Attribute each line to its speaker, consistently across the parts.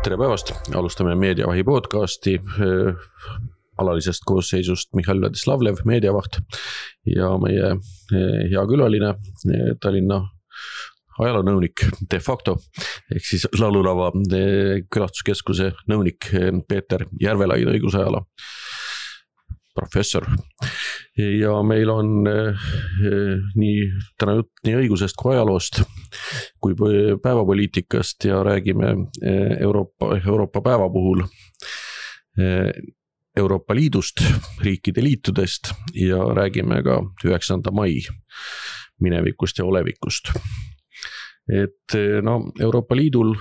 Speaker 1: Tere päevast, alustame Meediavahi podcasti alalisest koosseisust Mihhail Vladislavlev, meediavaht ja meie hea külaline Tallinna ajaloonõunik de facto ehk siis Laululava külastuskeskuse nõunik Peeter Järvelaid, õigusajala professor. Ja meil on täna jutt nii õigusest kui ajaloost kui päevapoliitikast ja räägime Euroopa päeva puhul Euroopa Liidust, riikide liitudest ja räägime ka 9. mai minevikust ja olevikust. Et Euroopa Liidul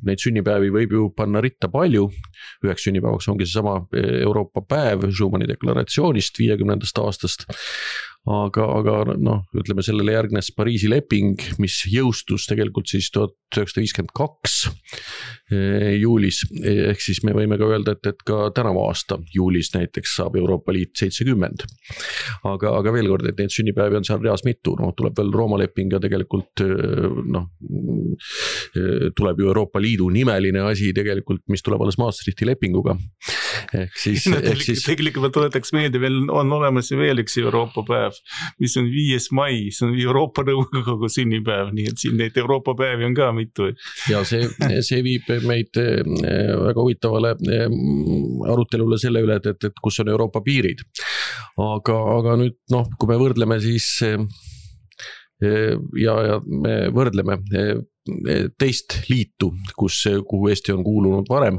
Speaker 1: neid sünnipäevi võib ju panna ritta palju. Üheks sünnipäevaks ongi see sama Euroopa päev Schumanni deklaratsioonist 50. aastast. Aga ütleme sellele järgnes Pariisi leping, mis jõustus tegelikult siis 1952 juulis. Ehk siis me võime ka öelda, et ka tänavu aasta juulis näiteks saab Euroopa Liit 70. Aga veel kord, et neid sünnipäevi on seal reas mitu. Tuleb veel Rooma leping ja tegelikult tuleb ju Euroopa Liidu nimeline asi tegelikult, mis tuleb alles Maastrichti lepinguga.
Speaker 2: Tegelikult ma tuletaks meelde, veel on olemas veel üks Euroopa päev, mis on 5. mai, see on Euroopa Nõukogu sünnipäev, nii et siin neid Euroopa päevi on ka mitu.
Speaker 1: Ja see viib meid väga huvitavale arutelule selle üle, et kus on Euroopa piirid. Aga nüüd, kui me võrdleme siis ja me võrdleme teist liitu, kuhu Eesti on kuulunud varem,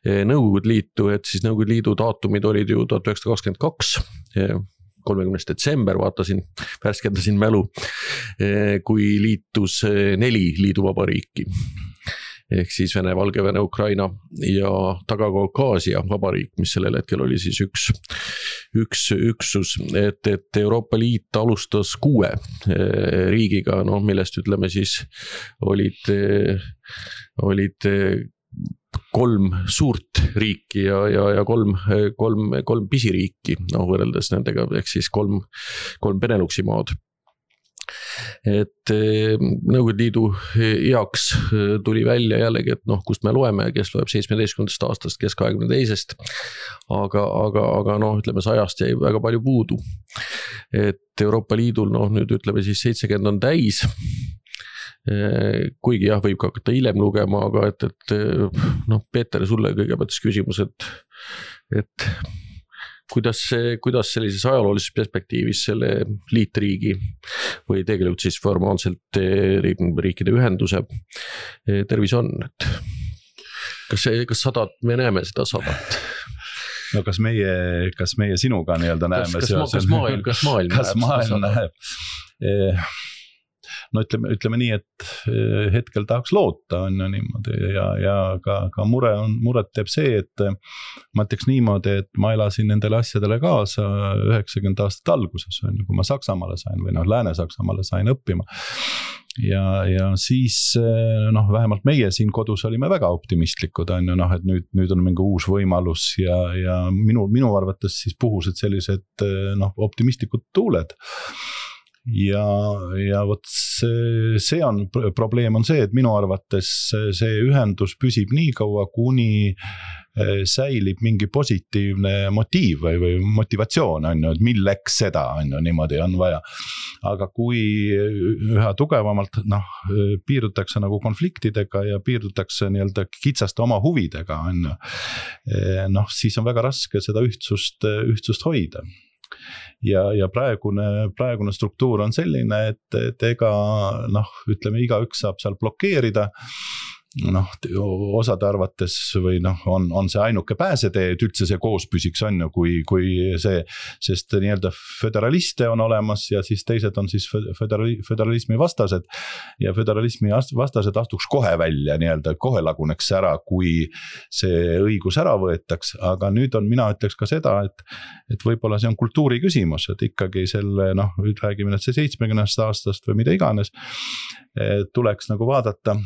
Speaker 1: Nõukogude liitu, et siis Nõukogude liidu daatumid olid ju 1922, 30. detsember, värskendasin mälu, kui liitus 4 liiduvabariiki. Ehk siis Vene, Valgevene, Ukraina ja Taga-Kaukaasia vabariik, mis sellel hetkel oli siis üks üksus, et Euroopa Liit alustas 6 riigiga, millest ütleme siis olid 3 suurt riiki ja 3 pisiriiki, võrreldes nendega, ehk siis 3 Beneluxi maad. Et Nõukogude Liidu heaks tuli välja jällegi, et kust me loeme, kes loeb 17. aastast, kes 22. Aga ütleme, 100 jäi väga palju puudu. Et Euroopa Liidul, nüüd ütleme siis 70 on täis, kuigi võib ka hakata hiljem lugema, aga et Peeter, sulle kõigepealt küsimus, et kuidas sellises ajaloolises perspektiivis selle liitriigi või tegelikult siis formaalselt riikide ühenduse tervis on? Kas sadat, me näeme seda sadat?
Speaker 3: No kas meie sinuga nii-öelda näeme?
Speaker 1: Kas maailm
Speaker 3: näeb? Ütleme nii, et hetkel tahaks loota on niimoodi ja ka muret teeb see, et ma ütleks niimoodi, et ma elasin nendele asjadele kaasa 90 aastat alguses, kui ma Saksamaale sain või Lääne-Saksamaale sain õppima. Ja siis vähemalt meie siin kodus olime väga optimistlikud, et nüüd on mingi uus võimalus ja minu arvates siis puhusid sellised optimistlikud tuuled. Ja vot see on probleem on see, et minu arvates see ühendus püsib nii kaua, kuni säilib mingi positiivne motiiv või motivatsioon, et milleks seda niimoodi on vaja. Aga kui üha tugevamalt piirdutakse nagu konfliktidega ja piirdutakse nii-öelda kitsaste oma huvidega, siis on väga raske seda ühtsust hoida. Ja praegune struktuur on selline, et ega ütleme, igaüks saab seal blokeerida. Osade arvates või on see ainuke pääsetee, et üldse see koos püsiks kui see, sest nii-öelda föderaliste on olemas ja siis teised on siis föderalismi vastased ja föderalismi vastased astuks kohe välja, nii-öelda kohe laguneks ära, kui see õigus ära võetaks, aga nüüd mina ütleks ka seda, et võib-olla see on kultuuri küsimus, et ikkagi selle, räägime nüüd see 70. aastast või mida iganes, tuleks nagu vaadata,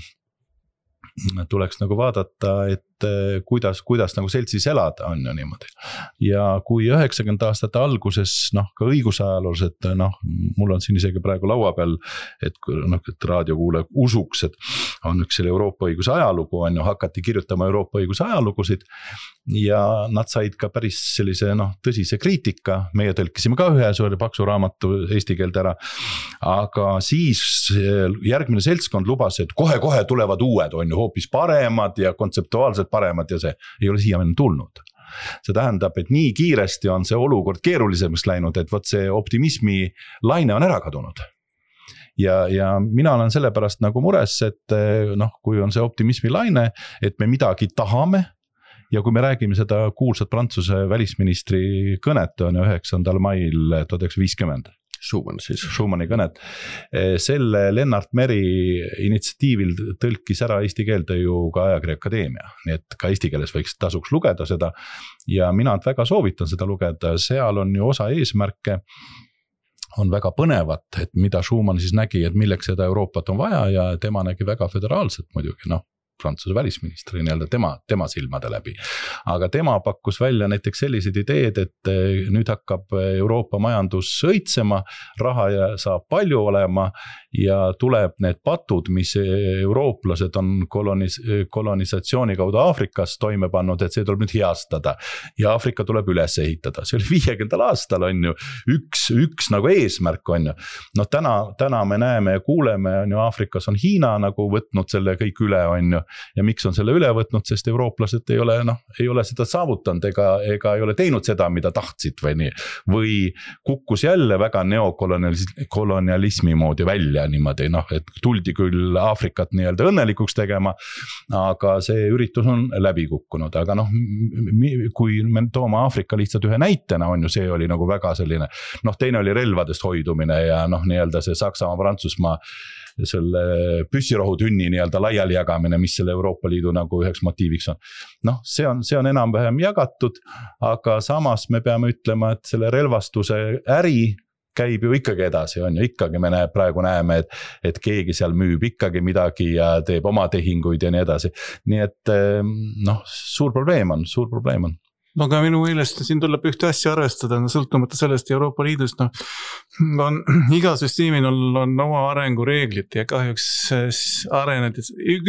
Speaker 3: et et kuidas nagu seltsis elada on ju niimoodi. Ja kui 90 aastate alguses ka õigusajaloosed, mul on siin isegi praegu laua peal, et raadiokuulaja usuks, et on üks selle Euroopa õiguse ajalugu on ju, hakati kirjutama Euroopa õiguse ajalugusid ja nad said ka päris sellise tõsise kriitika, meie tõlkisime ka ühe suure paksu raamatu eesti keelde ära, aga siis järgmine seltskond lubas, et kohe tulevad uued on ju hoopis paremad ja kontseptuaalselt paremad ja see ei ole siiamaani tulnud. See tähendab, et nii kiiresti on see olukord keerulisemaks läinud, et võt see optimismi laine on ära kadunud. Ja mina olen sellepärast nagu mures, et kui on see optimismi laine, et me midagi tahame ja kui me räägime seda kuulsat Prantsuse välisministri kõnet on 9. mail 1950. Schumanni kõnet. Selle Lennart Meri initsiatiivil tõlkis ära eesti keelde ju ka Ajakirja Akadeemia, nii et ka eesti keeles võiks tasuks lugeda seda ja mina väga soovitan seda lugeda, seal on ju osa eesmärke, on väga põnevat, et mida Schumann siis nägi, et milleks seda Euroopat on vaja ja tema nägi väga föderaalselt muidugi, Prantsuse välisministri tema silmade läbi. Aga tema pakkus välja näiteks sellised ideed, et nüüd hakkab Euroopa majandus õitsema, raha saab palju olema ja tuleb need patud, mis eurooplased on kolonisatsiooni kaudu Aafrikas toime pannud, et see tuleb nüüd heastada ja Aafrika tuleb üles ehitada. See oli 50. aastal on ju üks nagu eesmärk on ju. Täna me näeme ja kuuleme on ju Aafrikas on Hiina nagu võtnud selle kõik üle on ju. Ja miks on selle üle võtnud, sest eurooplased ei ole seda saavutanud ega ei ole teinud seda, mida tahtsid või nii. Või kukkus jälle väga neokolonialismi moodi välja niimoodi, et tuldi küll Aafrikat nii-öelda õnnelikuks tegema, aga see üritus on läbi kukkunud. Aga kui me toome Aafrika lihtsalt ühe näitena on ju, see oli nagu väga selline, teine oli relvadest hoidumine ja nii-öelda see Saksamaa, Prantsusmaa selle püssirohutünni nii-öelda laiali jagamine, mis selle Euroopa Liidu nagu üheks motiiviks on. See on enam-vähem jagatud, aga samas me peame ütlema, et selle relvastuse äri käib ju ikkagi edasi, on ju, ikkagi me praegu näeme, et keegi seal müüb ikkagi midagi ja teeb oma tehinguid ja nii edasi. Nii et suur probleem on.
Speaker 2: Aga minu meelest siin tuleb ühte asja arvestada, sõltumata sellest Euroopa Liidust, iga süsteemil on oma arengureeglid ja kahjuks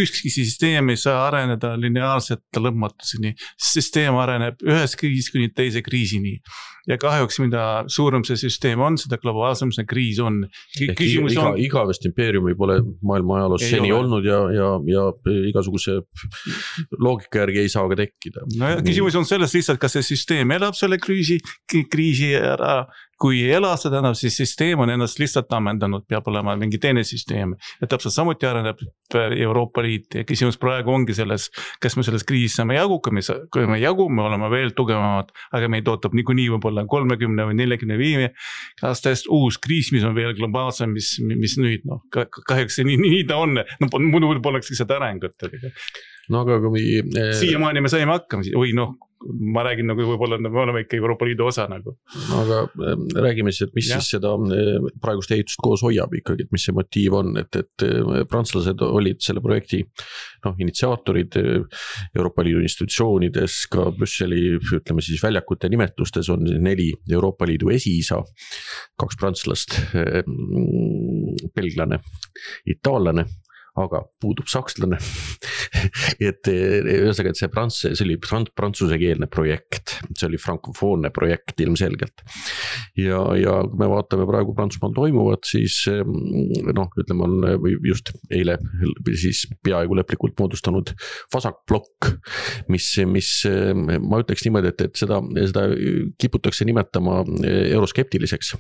Speaker 2: ükski süsteem ei saa areneda lineaarselt lõpmatuseni. Süsteem areneb ühest kriisist kuni teise kriisini. Ja kahjuks mida suurem see süsteem on, seda globaalsem see kriis on.
Speaker 1: Igavest impeeriumi pole maailma ajaloos seni olnud ja igasuguse loogika järgi ei saa ka tekkida.
Speaker 2: Küsimus on selles lihtsalt, kas see süsteem elab selle kriisi ära. Kui ei ela seda, siis süsteem on ennast lihtsalt ammendanud, peab olema mingi teine süsteem. Ja täpselt samuti areneb Euroopa Liit ja küsimus praegu ongi selles, kas me selles kriisis saame jagu, kui me jagu, me oleme veel tugevamad, aga meid ootab niikuinii võib-olla 30 või 45 aastast uus kriis, mis on veel globaalsem, mis nüüd, kahjuks nii ta on, muidu poleks lihtsalt arengut.
Speaker 1: Aga kui
Speaker 2: siiamaani me saime hakkama, või ma räägin võib-olla, me oleme ikka Euroopa Liidu osa nagu.
Speaker 1: Aga räägime siis, et mis siis seda praegust ehitust koos hoiab ikkagi, et mis see motiiv on, et prantslased olid selle projekti initsiaatorid Euroopa Liidu institutsioonides, ka Brüsseli, ütleme siis väljakute nimetustes on 4 Euroopa Liidu esiisa, 2 prantslast, belglane, itaallane, aga puudub sakslane. et see oli prantsusekeelne projekt, see oli frankofoonne projekt ilmselgelt. Ja kui me vaatame praegu Prantsusmaal toimuvat, siis ütleme on just eile siis peaaegu lõplikult moodustanud vasakblokk, mis ma ütleks niimoodi, et seda kiputakse nimetama euroskeptiliseks.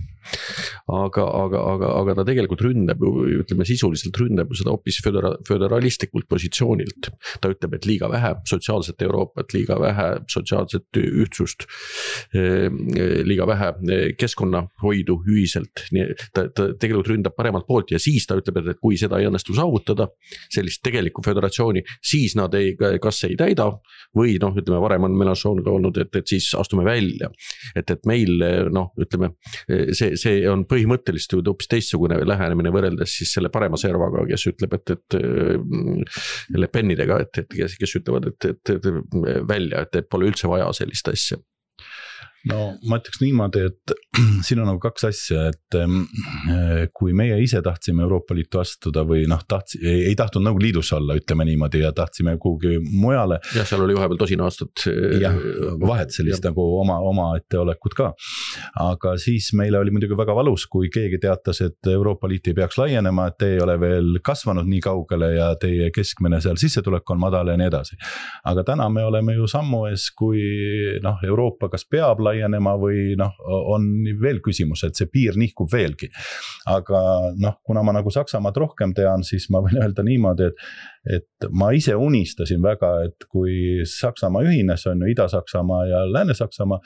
Speaker 1: Aga ta tegelikult ründab, ütleme sisuliselt ründab seda hoopis föderalistlikult positsioonilt. Ta ütleb, et liiga vähe sotsiaalset Euroopat, liiga vähe sotsiaalset ühtsust, liiga vähe keskkonnahoidu ühiselt. Ta tegelikult ründab paremalt poolt ja siis ta ütleb, et kui seda ei õnnestu saavutada, sellist tegelikku föderatsiooni, siis nad kas ei täida või ütleme, varem on Mélenchon ka olnud, et siis astume välja. Et meil, ütleme, see on põhimõtteliselt hoopis teistsugune lähenemine võrreldes siis selle parema servaga, kes ütleb, et Le Penidega, kes ütlevad, et välja, et pole üldse vaja sellist asja.
Speaker 3: No ma ütleks niimoodi, et siin on nagu kaks asja, et kui meie ise tahtsime Euroopa Liitu astuda või ei tahtnud nagu liidus olla, ütleme niimoodi, ja tahtsime kuhugi mujale.
Speaker 1: Ja seal oli vahepeal tosin aastat.
Speaker 3: Jah, vahet sellist nagu oma etteolekut ka. Aga siis meile oli muidugi väga valus, kui keegi teatas, et Euroopa Liit ei peaks laienema, et te ei ole veel kasvanud nii kaugele ja teie keskmine seal sissetulek on madal ja nii edasi. Aga täna me oleme ju sammu ees, kui Euroopa kas peab laienema või on veel küsimus, et see piir nihkub veelgi. Aga kuna ma nagu Saksamaad rohkem tean, siis ma võin öelda niimoodi, et ma ise unistasin väga, et kui Saksamaa ühines, on ju Ida-Saksamaa ja Lääne-Saksamaa,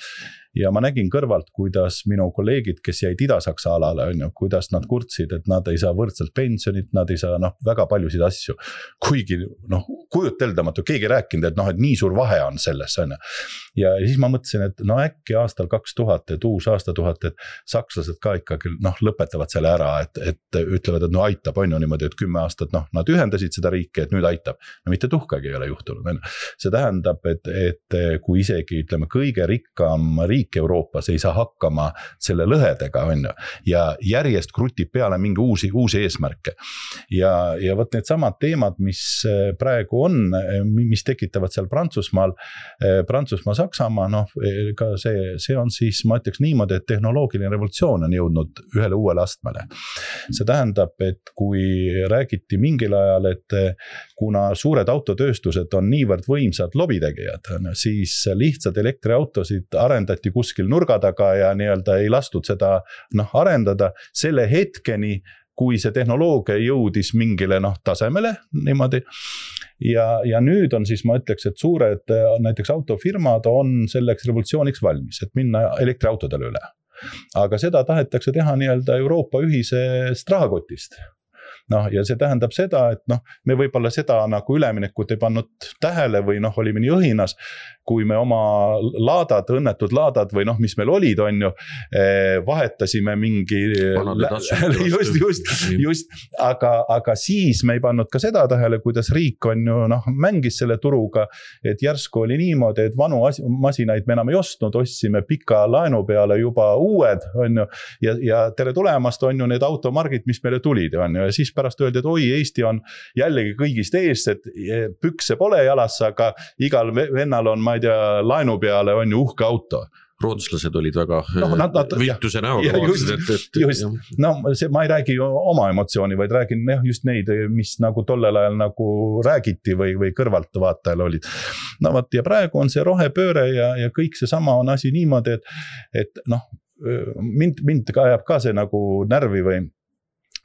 Speaker 3: ja ma nägin kõrvalt, kuidas minu kolleegid, kes jäid Ida-Saksa alale, on ju, kuidas nad kurtsid, et nad ei saa võrdselt pensionit, nad ei saa väga paljusid asju. Kuigi kujuteldamatu, keegi rääkinud, et nii suur vahe on selles, on ju. Ja siis ma mõtlesin, et äkki aastal 2000, et uus aastatuhat, et sakslased ka ikkagi lõpetavad selle ära, et ütlevad, et aitab, on ju niimoodi, et 10 aastat, nad ühendasid seda riiki, et nüüd aitab. No mitte tuhkagi ei ole juhtunud. See tähendab, et kui isegi ütleme kõige rikkam riik Euroopas ei saa hakkama selle lõhedega, on ju, ja järjest krutib peale mingi uusi eesmärke. Ja võt need samad teemad, mis praegu on, mis tekitavad seal Prantsusmaal, Saksamaa, ka see on siis, ma ütleks niimoodi, et tehnoloogiline revolutsioon on jõudnud ühele uuele astmele. See tähendab, et kui räägiti mingil ajal, et kuna suured autotööstused on niivõrd võimsad lobitegijad, siis lihtsalt elektriautosid arendati kuskil nurga taga ja nii-öelda ei lastud seda arendada selle hetkeni, kui see tehnoloogia jõudis mingile tasemele niimoodi. Ja nüüd on siis, ma ütleks, et suured näiteks autofirmad on selleks revolutsiooniks valmis, et minna elektriautodele üle. Aga seda tahetakse teha nii-öelda Euroopa ühisest rahakotist. Ja see tähendab seda, et me võib-olla seda nagu üleminekut ei pannud tähele või olime nii õhinas, kui me oma õnnetud laadad või mis meil olid, on ju, vahetasime mingi just, aga siis me ei pannud ka seda tähele, kuidas riik on ju mängis selle turuga, et järsku oli niimoodi, et vanu masinaid me enam ei ostnud, ostsime pika laenu peale juba uued, on ju, ja tere tulemast on ju need automargid, mis meile tulid, on ju, ja siis pärast öeldi, et oi, Eesti on jällegi kõigist ees, et pükse pole jalas, aga igal vennal on, ma ei tea, laenu peale on ju uhke auto.
Speaker 1: Rootslased olid väga viituse näoga.
Speaker 3: Just. Ma ei räägi oma emotsiooni, vaid räägin just neid, mis nagu tollel ajal nagu räägiti või kõrvalt vaatajal olid. Ja praegu on see rohepööre ja kõik see sama on asi niimoodi, et mind ka ajab ka see nagu närvi või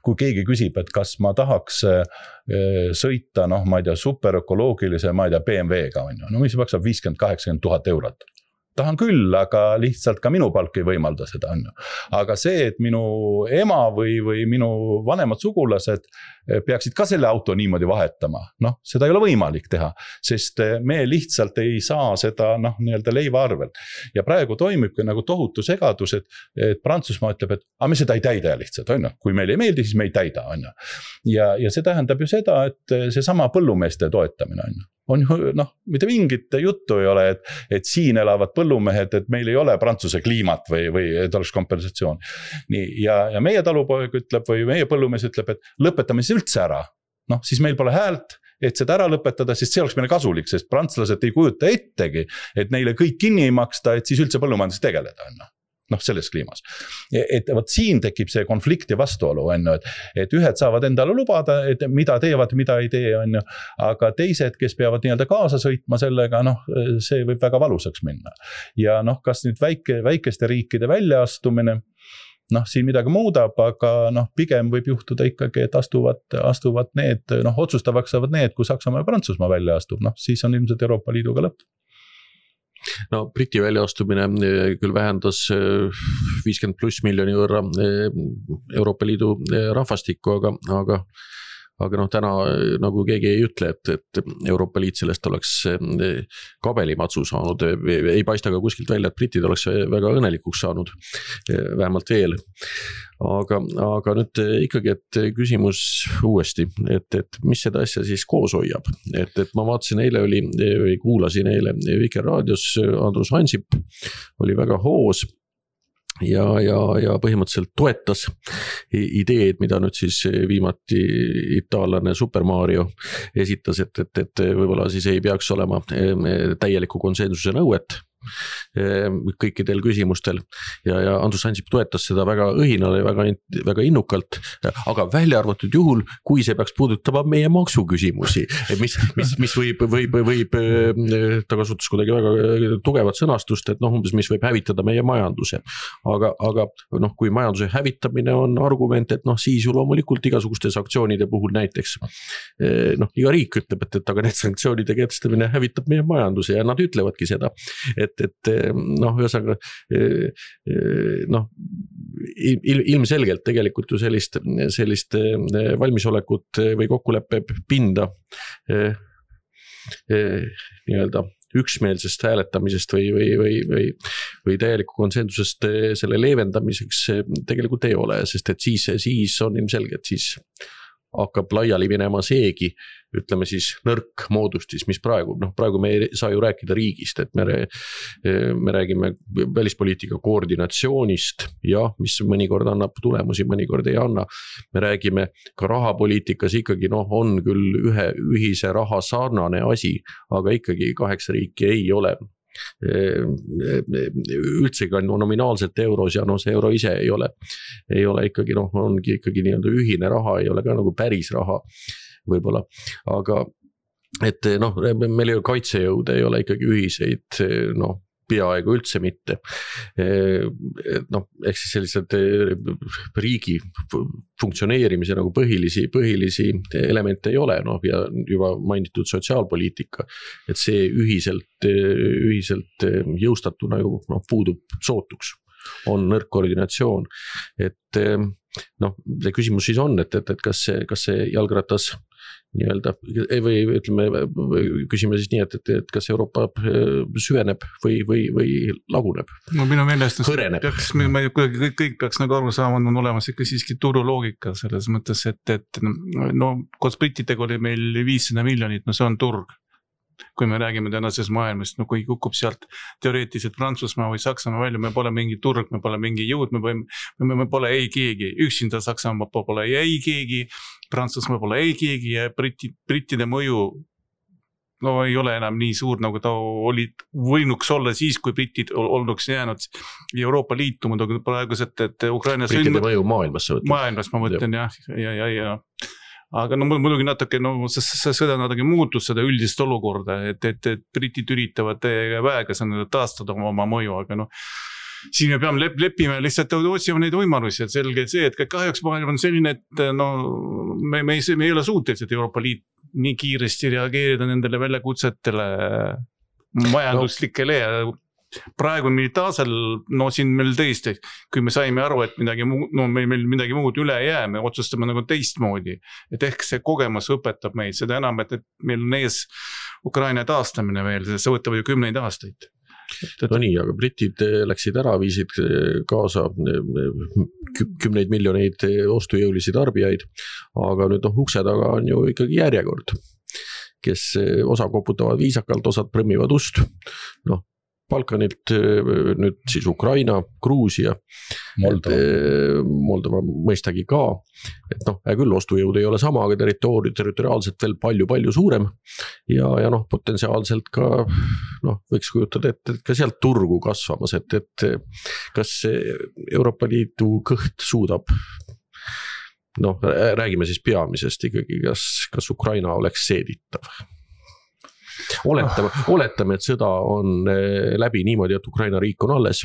Speaker 3: kui keegi küsib, et kas ma tahaks sõita, ma ei tea, superökoloogilise, ma ei tea, BMW-ga, mis maksab 50-80 000 eurot. Tahan küll, aga lihtsalt ka minu palk ei võimalda seda. Aga see, et minu ema või minu vanemad sugulased peaksid ka selle auto niimoodi vahetama, seda ei ole võimalik teha, sest me lihtsalt ei saa seda nii-öelda leiva arvel. Ja praegu toimibki nagu tohutu segadus, et Prantsusmaa ütleb, et me seda ei täida lihtsalt, on ju. Kui meil ei meeldi, siis me ei täida, on ju. Ja see tähendab ju seda, et see sama põllumeeste toetamine, on ju. On mitte mingit juttu ei ole, et siin elavad põllumehed, et meil ei ole Prantsuse kliimat või et oleks kompensatsioon. Nii, ja meie talupoeg ütleb või meie põllumees ütleb, et lõpetame siis üldse ära. Siis meil pole häält, et seda ära lõpetada, sest see oleks meile kasulik, sest prantslased ei kujuta ettegi, et neile kõik kinni ei maksta, et siis üldse põllumajandus tegeleda on. Selles kliimas. Et siin tekib see konflikt ja vastuolu, et ühed saavad endale lubada, et mida teevad, mida ei tee, on ju, aga teised, kes peavad nii-öelda kaasa sõitma sellega, see võib väga valusaks minna. Ja kas nüüd väikeste riikide väljaastumine, siin midagi muudab, aga pigem võib juhtuda ikkagi, et astuvad need, otsustavaks saavad need, kui Saksamaa ja Prantsusmaa välja astub, siis on ilmselt Euroopa Liiduga lõpp.
Speaker 1: Briti väljaastumine küll vähendas 50+ miljoni võrra Euroopa Liidu rahvastikku, aga aga noh, täna nagu keegi ei ütle, et Euroopa Liit sellest oleks kabelimatsu saanud, ei paista ka kuskilt välja, et britid oleks väga õnnelikuks saanud, vähemalt veel. Aga nüüd ikkagi, et küsimus uuesti, et mis seda asja siis koos hoiab, et ma vaatasin eile kuulasin eile Vikerraadios Andrus Ansip oli väga hoos ja põhimõtteliselt toetas ideed, mida nüüd siis viimati itaallane Super Mario esitas, et võib-olla siis ei peaks olema täieliku konsensuse nõuet kõikidel küsimustel ja Andrus Ansip toetas seda väga õhinal ja väga innukalt, aga välja arvatud juhul, kui see peaks puudutama meie maksuküsimusi, mis võib ta kasutas kuidagi väga tugevat sõnastust, et umbes mis võib hävitada meie majanduse, aga kui majanduse hävitamine on argument, et siis ju loomulikult igasuguste sanktsioonide puhul näiteks iga riik ütleb, et aga need sanktsioonide kehtestamine hävitab meie majanduse ja nad ütlevadki seda, et ühesõnaga ilmselgelt tegelikult ju sellist valmisolekut või kokkuleppe pinda nii-öelda üksmeelsest hääletamisest või täieliku konsensusest selle leevendamiseks tegelikult ei ole, sest et siis on ilmselge, et siis hakkab laiali minema seegi, ütleme siis nõrk moodustis, mis praegu me ei saa ju rääkida riigist, et me räägime välispoliitika koordinatsioonist ja mis mõnikord annab tulemusi, mõnikord ei anna. Me räägime ka rahapoliitikas ikkagi on küll ühe ühise raha sarnane asi, aga ikkagi 8 riiki ei ole üldse ka nominaalselt euros ja see euro ise ei ole ikkagi ongi ikkagi nii-öelda ühine raha, ei ole ka nagu päris raha võib-olla, aga et meil ju kaitsejõud ei ole ikkagi ühiseid peaaegu üldse mitte. Ehk siis sellised riigi funktsioneerimise nagu põhilisi elemente ei ole, ja juba mainitud sotsiaalpoliitika, et see ühiselt jõustatuna ju puudub sootuks, on nõrk koordinatsioon, et see küsimus siis on, et kas see jalgratas nii-öelda, või ütleme, küsime siis nii, et kas Euroopa süveneb või laguneb?
Speaker 2: Minu meelest
Speaker 1: hõreneb.
Speaker 2: Kõik peaks nagu aru saama, on olemas ikka siiski turuloogika selles mõttes, et koos brittidega oli meil 500 miljonit, see on turg. Kui me räägime tänases maailmast, kui kukub sealt teoreetiliselt Prantsusmaa või Saksamaa välja, me pole mingi turg, me pole mingi jõud, me pole ei keegi, üksinda Saksamaa pole ei keegi, Prantsusmaa pole ei keegi ja brittide mõju ei ole enam nii suur, nagu ta võinuks olla siis, kui britid olnuks jäänud Euroopa Liitu, muidugi praegused, et Ukrainas
Speaker 1: brittide mõju maailmas
Speaker 2: ma mõtlen, ja aga muidugi natuke, see sõda natuke muutus seda üldist olukorda, et britid üritavad väega taastada oma mõju, aga siin me peame leppima lihtsalt otsima neid võimalusi, et selge see, et kahjuks maailm on selline, et me ei ole suutelised Euroopa Liit nii kiiresti reageerida nendele väljakutsetele majanduslikele ja praegu militaarsel, siin meil tõesti, kui me saime aru, et meil midagi muud üle ei jää, me otsustame nagu teistmoodi, et ehk see kogemus õpetab meid, seda enam, et meil on ees Ukraina taastamine veel, see võtab ju 10 aastaid.
Speaker 1: Nii, aga britid läksid ära, viisid kaasa 10 miljoneid ostujõulisi tarbijaid, aga nüüd ukse taga on ju ikkagi järjekord, kes osa koputavad viisakalt, osad prõmmivad ust, Balkanilt, nüüd siis Ukraina, Gruusia, Moldova mõistagi ka, et küll ostujõud ei ole sama, aga territoriaalselt veel palju suurem ja potentsiaalselt ka võiks kujutada, et ka sealt turgu kasvamas, et kas Euroopa Liidu kõht suudab, räägime siis peamisest ikkagi, kas Ukraina oleks seeditav? Oletame, et sõda on läbi niimoodi, et Ukraina riik on alles,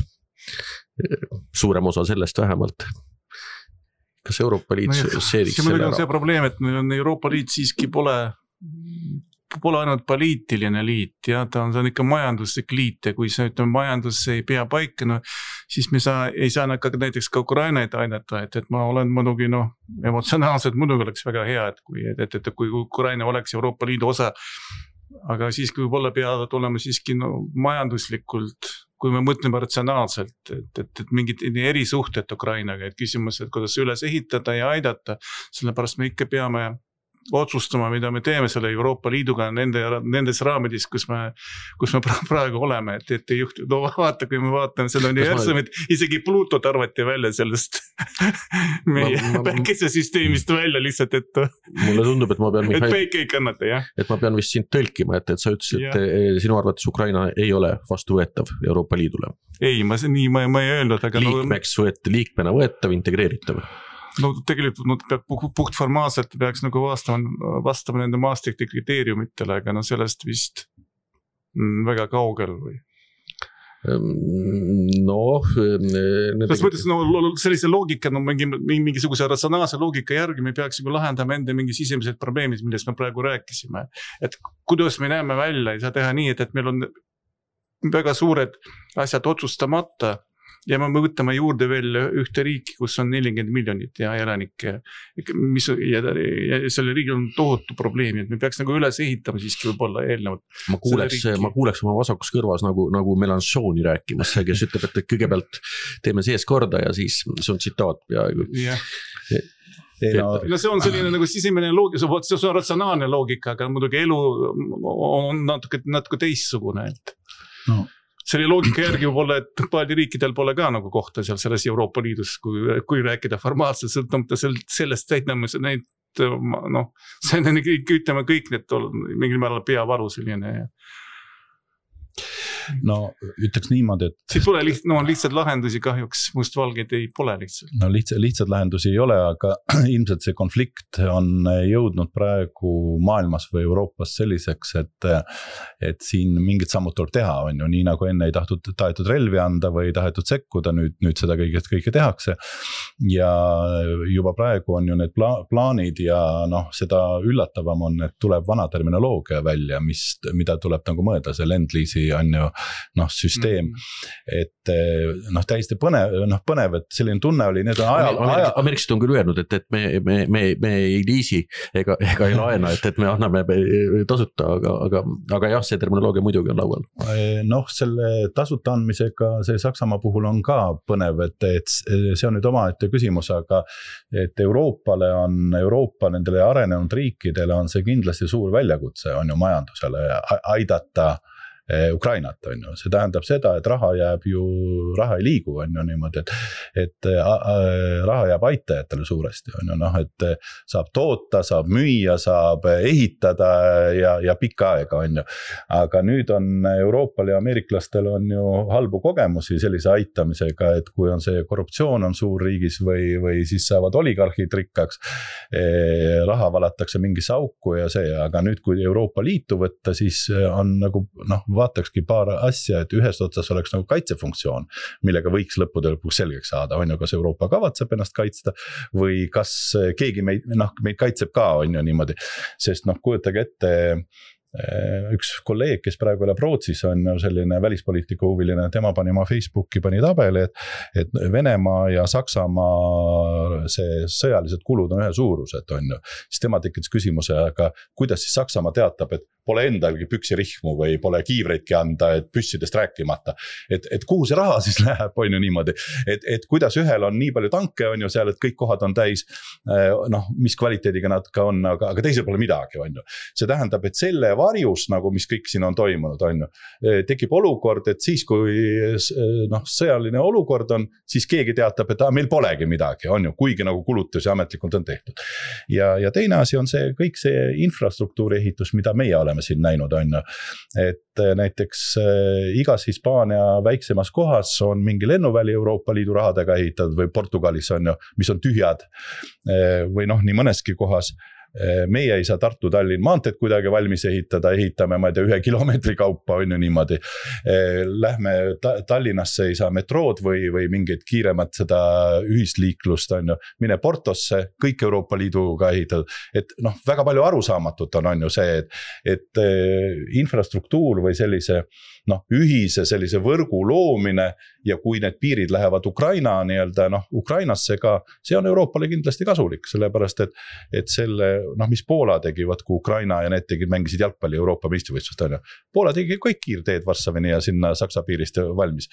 Speaker 1: suurem osa sellest vähemalt. Kas Euroopa Liit seediks selle ära?
Speaker 2: See probleem, et Euroopa Liit siiski pole ainult poliitiline liit, ja ta on ikka majanduslik liit ja kui see majandus ei pea paika, siis me ei saa näiteks ka Ukrainaid aidata, et ma olen muidugi emotsionaalselt muidugi oleks väga hea, et kui Ukraina oleks Euroopa Liidu osa, aga siiski võib-olla peavad olema siiski majanduslikult, kui me mõtleme ratsionaalselt, et mingid erisuhted Ukrainaga, et küsimus, et kuidas üles ehitada ja aidata, sellepärast me ikka peame otsustama, mida me teeme selle Euroopa Liiduga nendes raamidis, kus me praegu oleme, et ei juhtu, vaata, kui me vaatame seda universumit, isegi Plutot arvati välja sellest meie päikesesüsteemist välja lihtsalt, et
Speaker 1: mulle tundub, et ma pean
Speaker 2: et päike ei kannata, jah.
Speaker 1: Et ma pean vist sind tõlkima, et sa ütlesid, et sinu arvates Ukraina ei ole vastuvõetav Euroopa Liidule.
Speaker 2: Ei, ma ei öelnud, aga
Speaker 1: liikmena võetav, integreeritav.
Speaker 2: No tegelikult puht formaalselt peaks vastama nende Maastrichti kriteeriumitele, aga sellest vist väga kaugel või? Selles mõttes sellise loogika, mingisuguse ratsionaalse loogika järgi me peaks lahendama enda mingi sisemised probleemid, millest me praegu rääkisime. Et kuidas me näeme välja, ei saa teha nii, et meil on väga suured asjad otsustamata, ja me võtame juurde veel ühte riiki, kus on 40 miljonit ja elanikke, ja selle riigil on tohutu probleemi, et me peaks üles ehitama siiski võib-olla eelnevalt.
Speaker 1: Ma kuuleks oma vasakus kõrvas nagu Mélenchoni rääkimas, kes ütleb, et kõigepealt teeme sees korda ja siis see on tsitaat peaaegu.
Speaker 2: No see on selline sisemine loogika, see on ratsionaalne loogika, aga muidugi elu on natuke teistsugune, et selle loogika järgi võib-olla, et palju riikidel pole ka kohta selles Euroopa Liidus, kui rääkida formaalselt, sõltumata sellest täitname neid, see on ütleme kõik need mingil määral peavaru selline.
Speaker 3: No ütleks niimoodi, et
Speaker 2: siit pole lihtsalt lahendusi kahjuks, mustvalgeid ei pole lihtsalt.
Speaker 3: No lihtsalt lahendusi ei ole, aga ilmselt see konflikt on jõudnud praegu maailmas või Euroopas selliseks, et siin mingid sammud tuleb teha, on ju, nii nagu enne ei tahetud relvi anda või tahetud sekkuda, nüüd seda kõike tehakse. Ja juba praegu on ju need plaanid ja seda üllatavam on, et tuleb vana terminoloogia välja, mida tuleb mõelda, see Lend-Leasi on ju süsteem, et täiesti põnev, et selline tunne oli, need on
Speaker 1: Ameeriksid on küll öelnud, et me ei liisi ega ei laena, et me anname tasuta, aga jah, see terminoloogia muidugi on laual.
Speaker 3: Selle tasuta andmisega see Saksamaa puhul on ka põnev, et see on nüüd omaette küsimus, aga et Euroopa nendele arenenud riikidele on see kindlasti suur väljakutse, on ju majandusele aidata Ukrainat, on ju. See tähendab seda, et raha ei liigu, on ju niimoodi, et raha jääb aitajatele suuresti, on ju, et saab toota, saab müüa, saab ehitada ja pikka aega, on ju. Aga nüüd on Euroopal ja ameeriklastel on ju halbu kogemusi sellise aitamisega, et kui on see korruptsioon on suur riigis või siis saavad oligarhid rikkaks, raha valatakse mingisse auku ja see, aga nüüd kui Euroopa Liitu võtta, siis on vaatakski paar asja, et ühest otsas oleks kaitsefunktsioon, millega võiks lõppude lõpuks selgeks saada, on ju, kas Euroopa kavatseb ennast kaitsta või kas keegi meid kaitseb ka, on ju niimoodi, sest kujutage ette, üks kolleeg, kes praegu elab Rootsis, on selline välispoliitika huviline, tema pani oma Facebooki tabeli, et Venemaa ja Saksamaa see sõjalised kulud on ühe suurused, on ju. Siis tema tekitas küsimuse, aga kuidas siis Saksamaa teatab, et pole endalgi püksirihmu või pole kiivreidki anda, et püssidest rääkimata. Et kuhu see raha siis läheb, on ju niimoodi. Et kuidas ühel on nii palju tanke, on ju seal, et kõik kohad on täis, mis kvaliteediga nad ka on, aga teisel pole midagi, on ju. See tähendab, et selle varjus, mis kõik siin on toimunud, on ju, tekib olukord, et siis kui sõjaline olukord on, siis keegi teatab, et meil polegi midagi, on ju, kuigi kulutusi ametlikult on tehtud. Ja teine asi on see, kõik see infrastruktuuri ehitus, mida meie oleme siin näinud, on ju, et näiteks igas Hispaania väiksemas kohas on mingi lennuväli Euroopa Liidu rahadega ehitatud või Portugalis on ju, mis on tühjad või nii mõneski kohas, meie ei saa Tartu-Tallinn maanteed kuidagi valmis ehitada, ehitame, ma ei tea, 1 kilomeetri kaupa on ju niimoodi. Lähme Tallinnasse, ei saa metrood või mingeid kiiremat seda ühisliiklust on ju, mine Portosse, kõik Euroopa Liiduga ehitatud, et noh, väga palju arusaamatut on ju see, et infrastruktuur või sellise noh, ühise sellise võrgu loomine ja kui need piirid lähevad Ukraina nii-öelda noh, Ukrainasse ka, see on Euroopale kindlasti kasulik, sellepärast et selle noh, mis Poola tegi, kui Ukraina ja need mängisid jalgpalli Euroopa meistrivõistlust on ju. Poola tegi kõik kiirteed Varssavini ja sinna Saksa piirist valmis.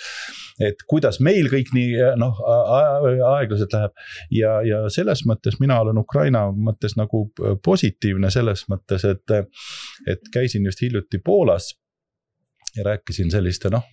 Speaker 3: Et kuidas meil kõik nii noh, aeglaselt läheb ja selles mõttes mina olen Ukraina mõttes nagu positiivne selles mõttes, et käisin just hiljuti Poolas ja rääkisin selliste noh,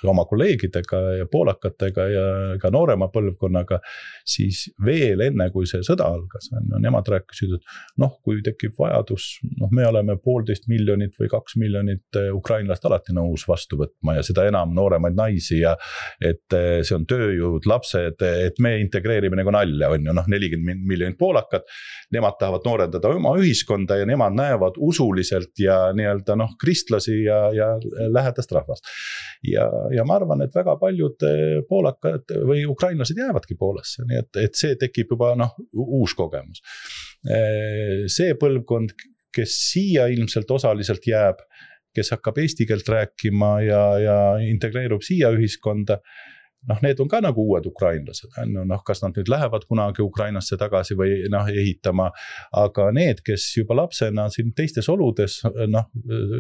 Speaker 3: oma kolleegidega ja poolakatega ja ka noorema põlvkonnaga, siis veel enne kui see sõda algas, nemad rääkisid, et noh, kui tekib vajadus, noh, me oleme 1,5 miljonit või 2 miljonit ukrainlast alati nõus vastu võtma ja seda enam nooremaid naisi ja et see on tööjõud, lapsed, et me integreerime nagu nalja, on ju, noh, 40 miljonit poolakat, nemad tahavad noorendada oma ühiskonda ja nemad näevad usuliselt ja nii-öelda noh, kristlasi ja lähedast rahvast. Ja ma arvan, et väga paljud poolakad või ukrainlased jäävadki Poolasse, nii et see tekib juba noh, uus kogemus. See põlvkond, kes siia ilmselt osaliselt jääb, kes hakkab eesti keelt rääkima ja integreerub siia ühiskonda, noh, need on ka nagu uued ukrainlased, noh, kas nad nüüd lähevad kunagi Ukrainasse tagasi või noh, ehitama, aga need, kes juba lapsena siin teistes oludes noh,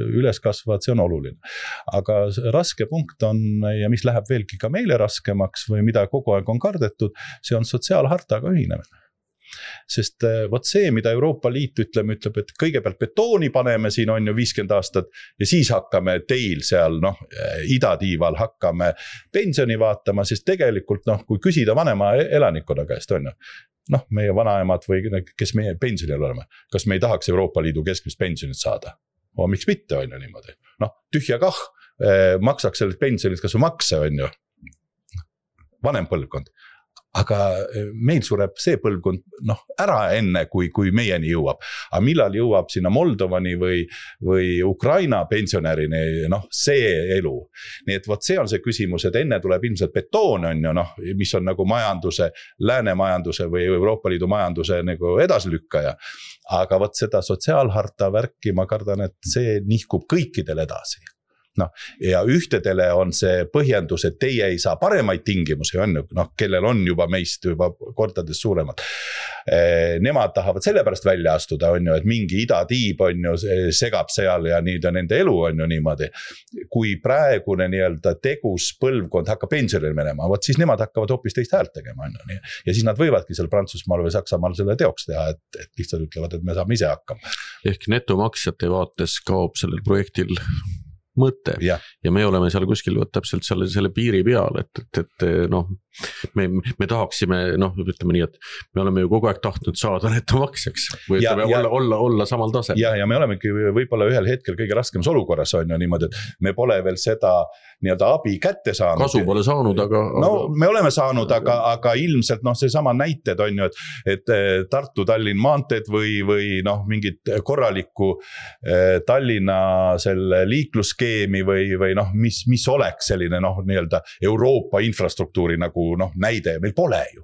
Speaker 3: üles kasvavad, see on oluline. Aga raske punkt on ja mis läheb veelgi ka meile raskemaks või mida kogu aeg on kardetud, see on sotsiaalhartaga ühinemine. Sest võt see, mida Euroopa Liit ütleb, et kõigepealt betooni paneme siin on ju 50 aastat ja siis hakkame teil seal noh, idatiival hakkame pensioni vaatama, sest tegelikult noh, kui küsida vanema elanikkonna käest on ju, noh, meie vanaemad või kes meie pensionil oleme, kas me ei tahaks Euroopa Liidu keskmist pensionit saada? Miks mitte on ju niimoodi? Noh, tühja kah, maksaks sellest pensionit kas või makse on ju, vanem põlvkond. Aga meil sureb see põlvkond noh, ära enne, kui meieni jõuab. Aga millal jõuab sinna Moldovani või Ukraina pensionärini, noh, see elu. Nii et võt see on see küsimus, et enne tuleb ilmselt betoon on ju, noh, mis on nagu majanduse, lääne majanduse või Euroopa Liidu majanduse nagu edasilükkaja. Aga võt seda sotsiaalharta värki, ma kardan, et see nihkub kõikidel edasi. No, ja ühtedele on see põhjendus, et teie ei saa paremaid tingimusi, on ju, noh, kellel on juba meist juba kordades suuremad. Nemad tahavad selle pärast välja astuda, on ju, et mingi idatiib on ju, segab seal ja nüüd on nende elu on ju niimoodi. Kui praegune nii-öelda tegus põlvkond hakkab pensionile minema, võt siis nemad hakkavad hoopis teist häält tegema, on ju. Ja siis nad võivadki seal Prantsusmaal või Saksamaal selle teoks teha, et lihtsalt ütlevad, et me saame ise hakkama.
Speaker 1: Ehk netomaksjate vaates kaob sellel projektil mõte ja me oleme seal kuskil täpselt selle piiri peal, et noh, me tahaksime, noh, ütleme nii, et me oleme ju kogu aeg tahtnud saada netomaksjaks või olla samal tasel.
Speaker 3: Ja me olemegi võib-olla ühel hetkel kõige raskemas olukorras on ju niimoodi, et me pole veel seda nii-öelda abi kätte saanud.
Speaker 1: Kasu pole saanud, aga...
Speaker 3: No me oleme saanud, aga ilmselt noh, see sama näited on ju, et Tartu-Tallinn maanteed või noh, mingit korralikku Tallinna selle liiklusskeemi või noh, mis oleks selline noh, nii-öelda Euroopa infrastruktuuri nagu noh, näide, meil pole ju.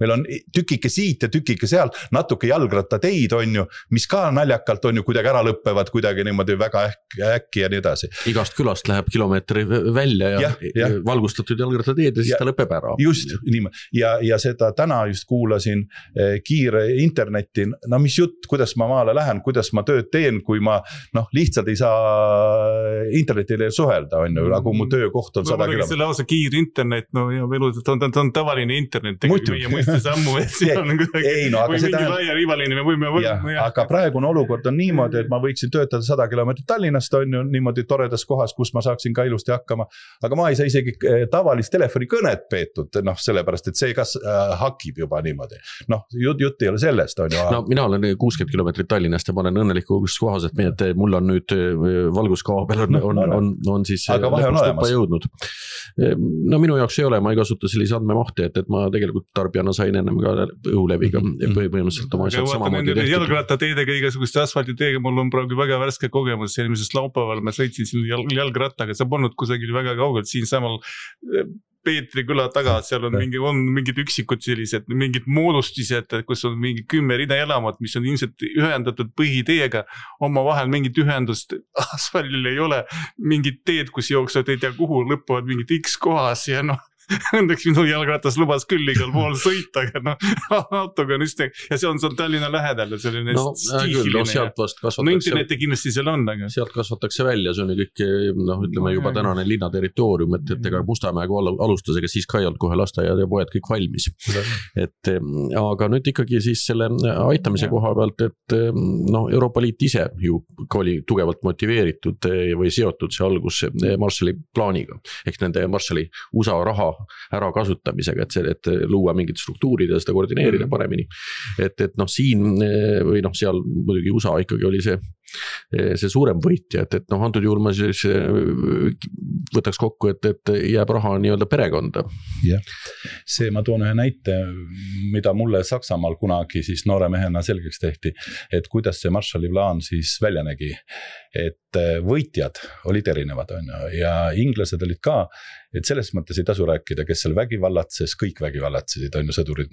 Speaker 3: Meil on tükike siit ja tükike seal, natuke jalgrattateid on ju, mis ka naljakalt on ju kuidagi ära lõppevad, kuidagi niimoodi väga äkki ja nii edasi.
Speaker 1: Igast külast läheb kilomeetri välja ja valgustatud jalgrattateed ja siis ta lõpeb ära.
Speaker 3: Just, niimoodi. Ja seda täna just kuulasin kiire interneti, no mis jutt, kuidas ma maale lähen, kuidas ma tööd teen, kui ma noh, lihtsalt ei saa internetile suhelda, on ju, aga mu töökoht on 100 kilomeetrit.
Speaker 2: See lausa kiir internet, no ja on tavaline internet, tegelikult sammu, et seal on kuidagi või mingi laia rivaline me võime
Speaker 3: aga praegune olukord on niimoodi, et ma võiksin töötada 100 kilomeetrit Tallinnast on ju niimoodi toredas kohas, kus ma saaksin ka ilusti hakkama, aga ma ei saa isegi tavalist telefonikõnet peetud, noh, sellepärast, et see kas hakib juba niimoodi. Noh, jutt ei ole sellest, on ju.
Speaker 1: No mina olen 60 kilomeetrit Tallinnast ja ma olen õnnelikus kohas, et mul on nüüd valguskaabel on siis lõpust jõudnud. No minu jaoks ei ole, ma ei kasuta sellise andmemahti, et ma tegelikult tarbijana ma sain ennem ka õhuleviga põhimõtteliselt oma asjad samamoodi tehtud.
Speaker 2: Jalgrattateedega, igasuguste asfaltiteega, mul on praegu väga värske kogemus, eelmises laupäeval ma sõitsin siin jalgrattaga, see polnud kusagil väga kaugelt, siin samal Peetri küla taga, seal on mingid üksikud sellised, mingid moodustised, kus on mingi 10 rida elamat, mis on ilmselt ühendatud põhiteega, oma vahel mingit ühendust asfaldil ei ole, mingid teed, kus jooksvad ei tea kuhu, lõppuvad mingid X kohas ja õnneks minu jalgratas lubas küll igal pool sõita, aga autoga on just, ja see on Tallinna lähedal ja selline stiihiline.
Speaker 1: Sealt vast kasvatakse.
Speaker 2: Interneti kindlasti seal on, aga.
Speaker 1: Sealt kasvatakse välja, see on kõik, ütleme juba tänane linna territoorium, et ega Mustamäega alustas, ega siis ka ei olnud kohe lasteaiad ja poed kõik valmis. Aga nüüd ikkagi siis selle aitamise koha pealt, et Euroopa Liit ise ju oli tugevalt motiveeritud või seotud see algus Marshalli plaaniga, ehk nende Marshalli USA raha ära kasutamisega, et luua mingid struktuurid ja seda koordineerida paremini. Et siin või seal muidugi USA ikkagi oli see suurem võitja, et antud juhul ma siis võtaks kokku, et jääb raha nii-öelda perekonda.
Speaker 3: Jah, see ma toon ühe näite, mida mulle Saksamaal kunagi siis noore mehena selgeks tehti, et kuidas see Marshalli plaan siis välja nägi, et võitjad olid erinevad ja inglased olid ka, et selles mõttes ei tasu rääkida, kes seal vägivallatses, kõik vägivallatsesid, sõdurid,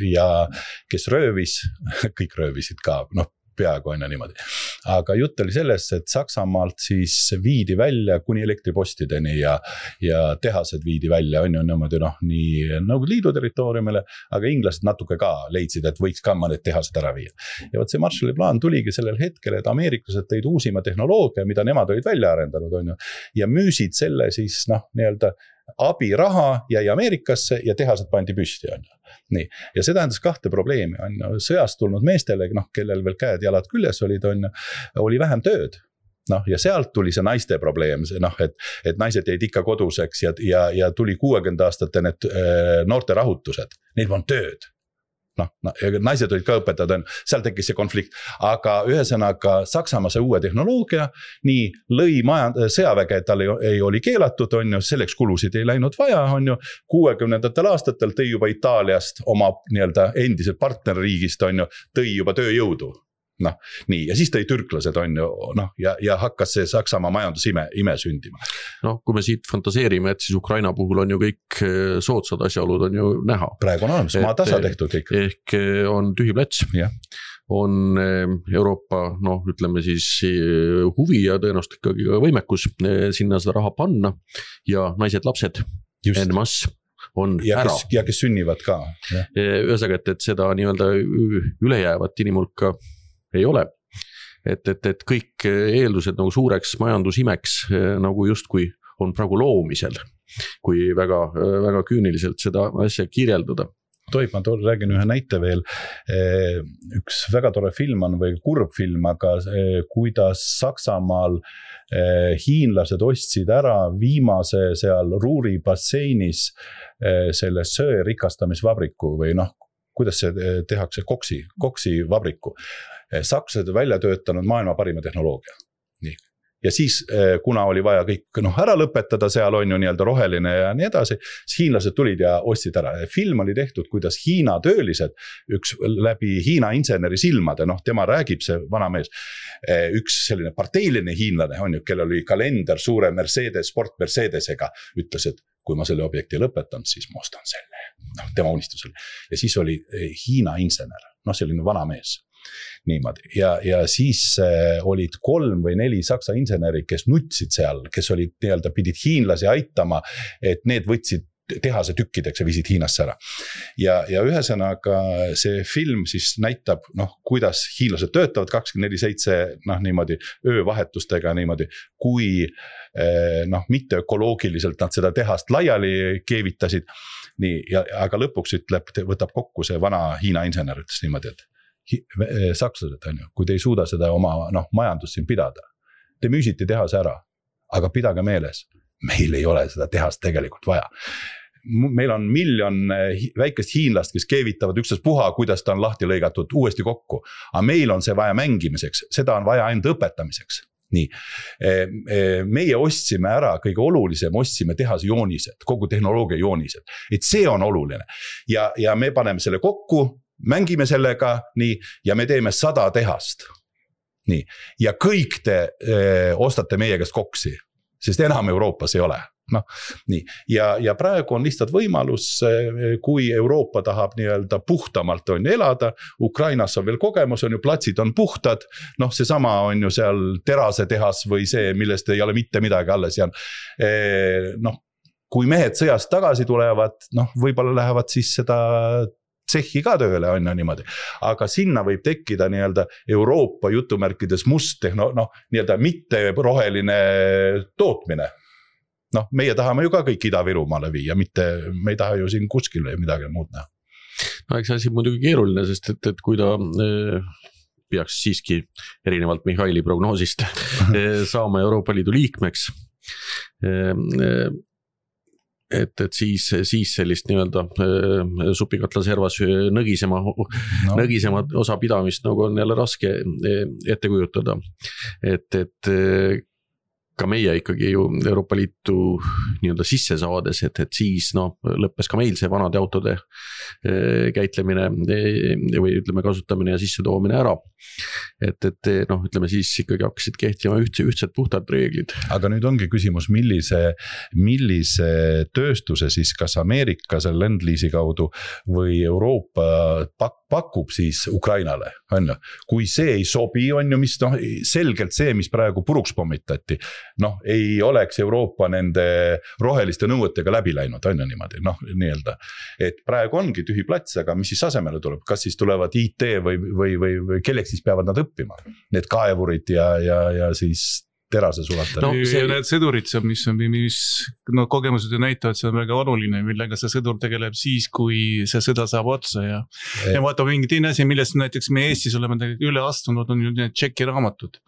Speaker 3: ja kes röövis, kõik röövisid ka, peaaegu on niimoodi. Aga jutt oli sellest, et Saksamaalt siis viidi välja kuni elektripostideni ja tehased viidi välja, on niimoodi nii Nõukogude Liidu territooriumile, aga inglased natuke ka leidsid, et võiks ka mõned tehased ära viia. Ja see Marshalli plaan tuligi sellel hetkel, et ameeriklased tõid uusima tehnoloogia, mida nemad olid välja arendanud, ja müüsid selle siis nii-öelda abiraha jäi Ameerikasse ja tehased pandi püsti. Nii. Ja see tähendas kahte probleemi. Sõjast tulnud meestele, kellel veel käed jalad küljes olid, oli vähem tööd. Ja sealt tuli see naiste probleem, et naised jäid ikka koduseks ja tuli 60 aastate need noorte rahutused. Neil on tööd. Naised olid ka õpetajad, seal tekkis see konflikt, aga ühesõnaga Saksamaa see uue tehnoloogia nii lõi sõjaväge, et tal ei oli keelatud, selleks kulusid ei läinud vaja, 60ndatel aastatel tõi juba Itaaliast oma nii-öelda endiselt partnerriigist, tõi juba tööjõudu. Nii, ja siis tõi türklased ja hakkas see Saksamaa majandusime sündima.
Speaker 1: Kui me siit fantaseerime, et siis Ukraina puhul on ju kõik soodsad asjaolud on ju näha.
Speaker 3: Praegu on olemas, maa tasa tehtud kõik.
Speaker 1: Ehk on tühi plats, on Euroopa, ütleme siis huvi ja tõenäoliselt ikkagi võimekus sinna seda raha panna ja naised, lapsed, en masse.
Speaker 3: Ja kes sünnivad ka.
Speaker 1: Ühesõnaga, et seda nii-öelda ülejäävat inimulka ei ole, et kõik eeldused nagu suureks majandusimeks nagu justkui on praegu loomisel, kui väga, väga küüniliselt seda asja kirjeldada.
Speaker 3: Tohib, ma räägin ühe näite veel. Üks väga tore film on või kurb film, aga kuidas Saksamaal hiinlased ostsid ära viimase seal Ruuri basseinis selle söe rikastamisvabriku või kuidas see tehakse koksi vabriku. Sakslased välja töötanud maailma parima tehnoloogia. Nii. Ja siis, kuna oli vaja kõik ära lõpetada, seal on ju nii-öelda roheline ja nii edasi, siis hiinlased tulid ja ostsid ära. Film oli tehtud, kuidas Hiina töölised, üks läbi Hiina inseneri silmade, tema räägib see vana mees, üks selline parteiline hiinlane on ju, kellel oli kalender suure Sport Mercedesega, ütles, et kui ma selle objekti lõpetan, siis ma ostan selle. Tema unistus oli. Ja siis oli Hiina insener, selline vana mees. Niimoodi. Ja siis olid 3 või 4 saksa inseneri, kes nutsid seal, kes olid nii-öelda pidid hiinlasi aitama, et need võtsid tehase tükkideks ja viisid Hiinasse ära. Ja ühesõnaga see film siis näitab, kuidas hiinlased töötavad 24/7 niimoodi öövahetustega niimoodi, kui mitte ökoloogiliselt nad seda tehast laiali keevitasid. Nii, aga lõpuks võtab kokku see vana Hiina insener, ütles niimoodi, et sakslased kui te ei suuda seda oma majandust siin pidada, te müüsite tehase ära, aga pidage meeles, meil ei ole seda tehast tegelikult vaja. Meil on 1 miljon väikest hiinlast, kes keevitavad ükstaspuha, kuidas ta on lahti lõigatud uuesti kokku, aga meil on see vaja mängimiseks, seda on vaja ainult õpetamiseks. nii, meie ostsime ära, kõige olulisem, ostsime tehase joonised, kogu tehnoloogia joonised, et see on oluline ja me paneme selle kokku, mängime sellega, nii, ja me teeme 100 tehast, nii, ja kõik te ostate meie käest koksi, sest enam Euroopas ei ole. Noh, nii. Ja praegu on lihtsalt võimalus, kui Euroopa tahab nii-öelda puhtamalt on elada, Ukrainas on veel kogemus, on ju platsid on puhtad, noh see sama on ju seal terase tehas või see, millest ei ole mitte midagi alles ja noh, kui mehed sõjast tagasi tulevad, noh võib-olla lähevad siis seda tsehhi ka tööle on ju niimoodi, aga sinna võib tekkida nii-öelda Euroopa jutumärkides must nii-öelda mitte roheline tootmine. Noh, meie tahame ju ka kõik Ida-Virumaale viia, mitte me ei taha ju siin kuskile midagi muud näha.
Speaker 1: No eks asi muidugi keeruline, sest et kui ta peaks siiski erinevalt Mihhaili prognoosist saama Euroopa Liidu liikmeks, et siis sellist nii-öelda supikatla servas nõgisema osa pidamist nagu on jälle raske ette kujutada, et ka meie ikkagi ju Euroopa Liitu nii-öelda sisse saades, et siis lõppes ka meil see vanade autode käitlemine või ütleme kasutamine ja sisse toomine ära. Et ütleme siis ikkagi hakkasid kehtima ühtsed puhtad reeglid.
Speaker 3: Aga nüüd ongi küsimus, millise tööstuse siis kas Ameerika selle Lend-Leasi kaudu või Euroopa pakub siis Ukrainale, on ju. Kui see ei sobi, on ju, mis selgelt see, mis praegu puruks pommitati, ei oleks Euroopa nende roheliste nõuetega läbi läinud, on ju niimoodi, nii-öelda. Et praegu ongi tühi plats, aga mis siis asemele tuleb? Kas siis tulevad IT või kelleks siis peavad nad õppima? Need kaevurid ja siis terase sulata.
Speaker 2: Need sõdurid, mis kogemused näitavad, see on väga oluline, millega see sõdur tegeleb siis, kui see sõda saab otsa ja vaata mingi teine asi, millest näiteks me Eestis oleme üle astunud, on ju need tšeki raamatud,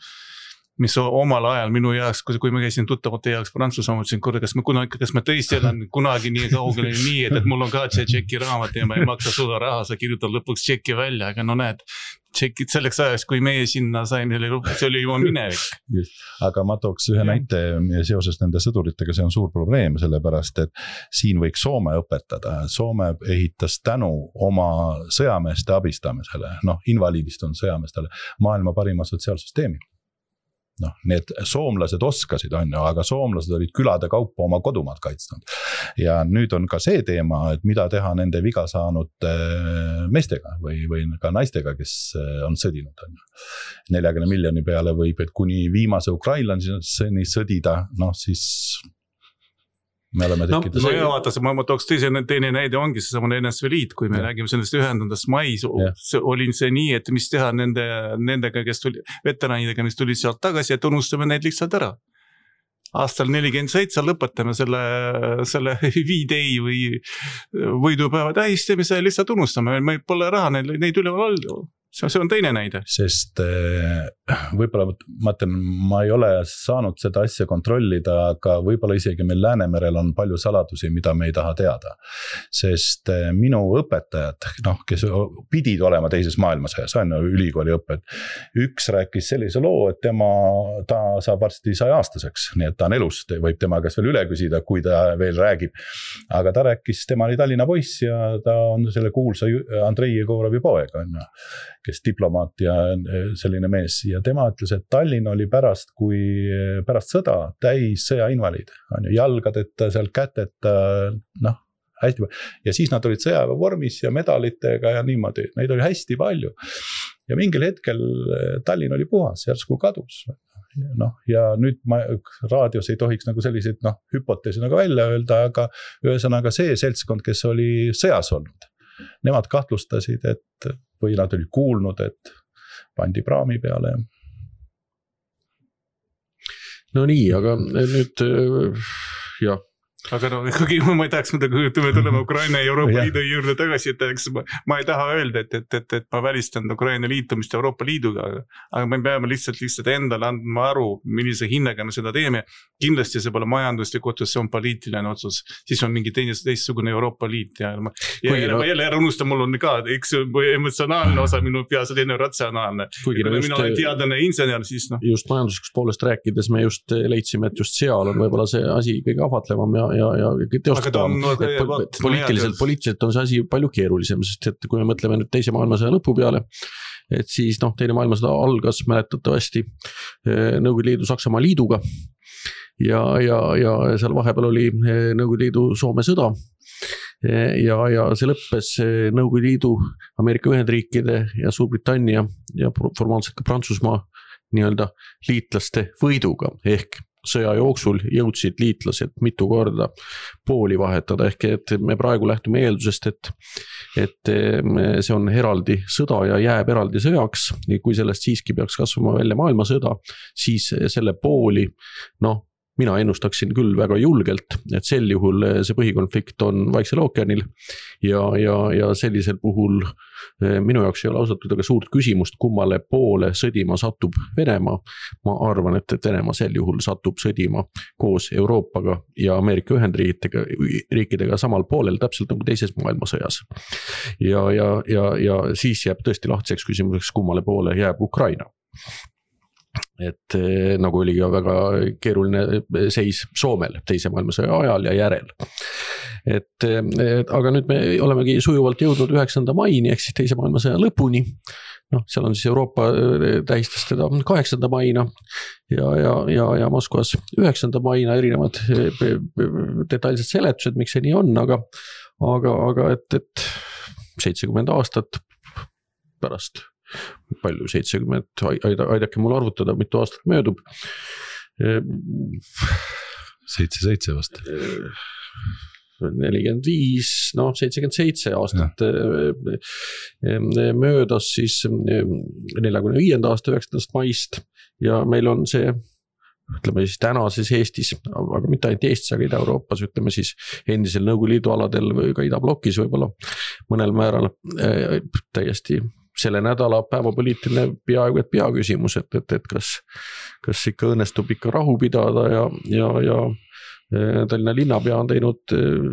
Speaker 2: mis omal ajal minu jaoks, kui ma käisin tuttavate jaoks Prantsusmaa, mõtlesin, kas ma tõesti elan kunagi nii kaugele nii, et mul on ka see tšeki raamat ja ma ei maksa suda raha, sa kirjutad lõpuks tšeki välja, aga näed, tšekid selleks ajaks, kui meie sinna saime, see oli juba minevik.
Speaker 3: Aga ma tooks ühe näite seoses nende sõduritega, see on suur probleem, sellepärast, et siin võiks Soome õpetada. Soome ehitas tänu oma sõjameeste abistamisele, invaliidist on sõjameestele, maailma parima sotsiaalsüsteemi. Need soomlased oskasid, on ju, aga soomlased olid külade kaupa oma kodumaad kaitsnud. Ja nüüd on ka see teema, et mida teha nende viga saanud meestega või ka naistega, kes on sõdinud. 40 miljoni peale võib, et kuni viimase ukrainlaseni sõdida, siis me oleme tekkinud.
Speaker 2: Ma tooks teine näide ongi see samane NSV Liit, kui me räägime sellest ühendandast mais, oli see nii, et mis teha nendega, kes tuli, veteranidega, mis tulid sealt tagasi, et unustame neid lihtsalt ära. Aastal 47 lõpetame selle V-Day või võidupäeva tähistamise lihtsalt unustame, me pole raha neid üleval olnud. See on teine näide.
Speaker 3: Sest võib-olla ma ei ole saanud seda asja kontrollida, aga võib-olla isegi meil Läänemerel on palju saladusi, mida me ei taha teada. Sest minu õpetajad, kes pidid olema teises maailmasõjas, on ülikooli õpped. Üks rääkis sellise loo, et ta saab varsti 100-aastaseks, nii et ta on elus, võib tema käest veel üle küsida, kui ta veel räägib. Aga ta rääkis, tema oli Tallinna poiss ja ta on selle kuulsa Andrei Jegorovi poeg, on ju, kes diplomaat ja selline mees ja tema ütles, et Tallinn oli pärast sõda täis sõjainvaliid, on ju, jalgadeta, seal käteta, hästi palju. Ja siis nad olid sõjaväevormis ja medalitega ja niimoodi, neid oli hästi palju. Ja mingil hetkel Tallinn oli puhas, järsku kadus. Ja nüüd raadios ei tohiks nagu selliseid hüpoteesi nagu välja öelda, aga ühesõnaga see seltskond, kes oli sõjas olnud, nemad kahtlustasid, või nad olid kuulnud, et pandi praami peale.
Speaker 1: No nii, aga nüüd jah,
Speaker 2: aga no ikkagi ma ei tahaks midagi, kui me tuleme Ukraina ja Euroopa Liidu juurde tagasi, et ma ei taha öelda, et ma välistan Ukraina liitumist Euroopa Liiduga, aga me peame lihtsalt endale andma aru, millise hinnaga me seda teeme. Kindlasti see pole majanduslik otsus, see on poliitiline otsus, siis on mingi teistsugune Euroopa Liit ja ma jälle ära unustan, mul on ka üks emotsionaalne osa minu peas, selline ratsionaalne. Mina olen teadlane insener, siis noh.
Speaker 1: Just majanduslikust poolest rääkides me just leidsime, et just seal on võib-olla see asi kõige ahvatlevam ja teostatavam. Poliitiliselt on see asi palju keerulisem, sest et kui me mõtleme nüüd teise maailmasõja lõpu peale, et siis teine maailmasõda algas mäletatavasti Nõukogude Liidu Saksamaa liiduga ja seal vahepeal oli Nõukogude Liidu Soome sõda ja see lõppes Nõukogude Liidu, Ameerika Ühendriikide ja Suurbritannia ja formaalselt ka Prantsusmaa nii-öelda liitlaste võiduga ehk sõja jooksul jõudsid liitlased mitu korda pooli vahetada ehk et me praegu lähtume eeldusest, et see on eraldi sõda ja jääb eraldi sõjaks. Kui sellest siiski peaks kasvama välja maailmasõda, siis selle pooli, mina ennustaksin küll väga julgelt, et sel juhul see põhikonflikt on Vaiksel ookeanil ja sellisel puhul minu jaoks ei ole ausalt aga suurt küsimust, kummale poole sõdima satub Venemaa. Ma arvan, et Venemaa sel juhul satub sõdima koos Euroopaga ja Ameerika Ühendriikidega samal poolel, täpselt nagu teises maailmasõjas. Ja siis jääb tõesti lahtiseks küsimuseks, kummale poole jääb Ukraina. Et nagu oli ka väga keeruline seis Soomel teise maailmasõja ajal ja järel. Aga nüüd me olemegi sujuvalt jõudnud 9. maini ehk siis teise maailmasõja lõpuni. Seal on siis Euroopa tähistas teda 8. maina ja Moskvas 9. maina erinevad detailsed seletused, miks see nii on, aga et 70 aastat pärast palju 70, aidake mul arvutada, mitu aastat möödub.
Speaker 3: 77 vast.
Speaker 1: 45, 77 aastat möödas siis 45. aasta 9. maist ja meil on see, ütleme siis tänases Eestis, aga mitte ainult Eestis, aga Ida-Euroopas, ütleme siis endisel Nõukogude Liidu aladel või ka Idablokis võib-olla mõnel määral täiesti selle nädala päevapoliitiline peaaegu et peaküsimus, et kas ikka õnnestub ikka rahu pidada ja Tallinna linnapea on teinud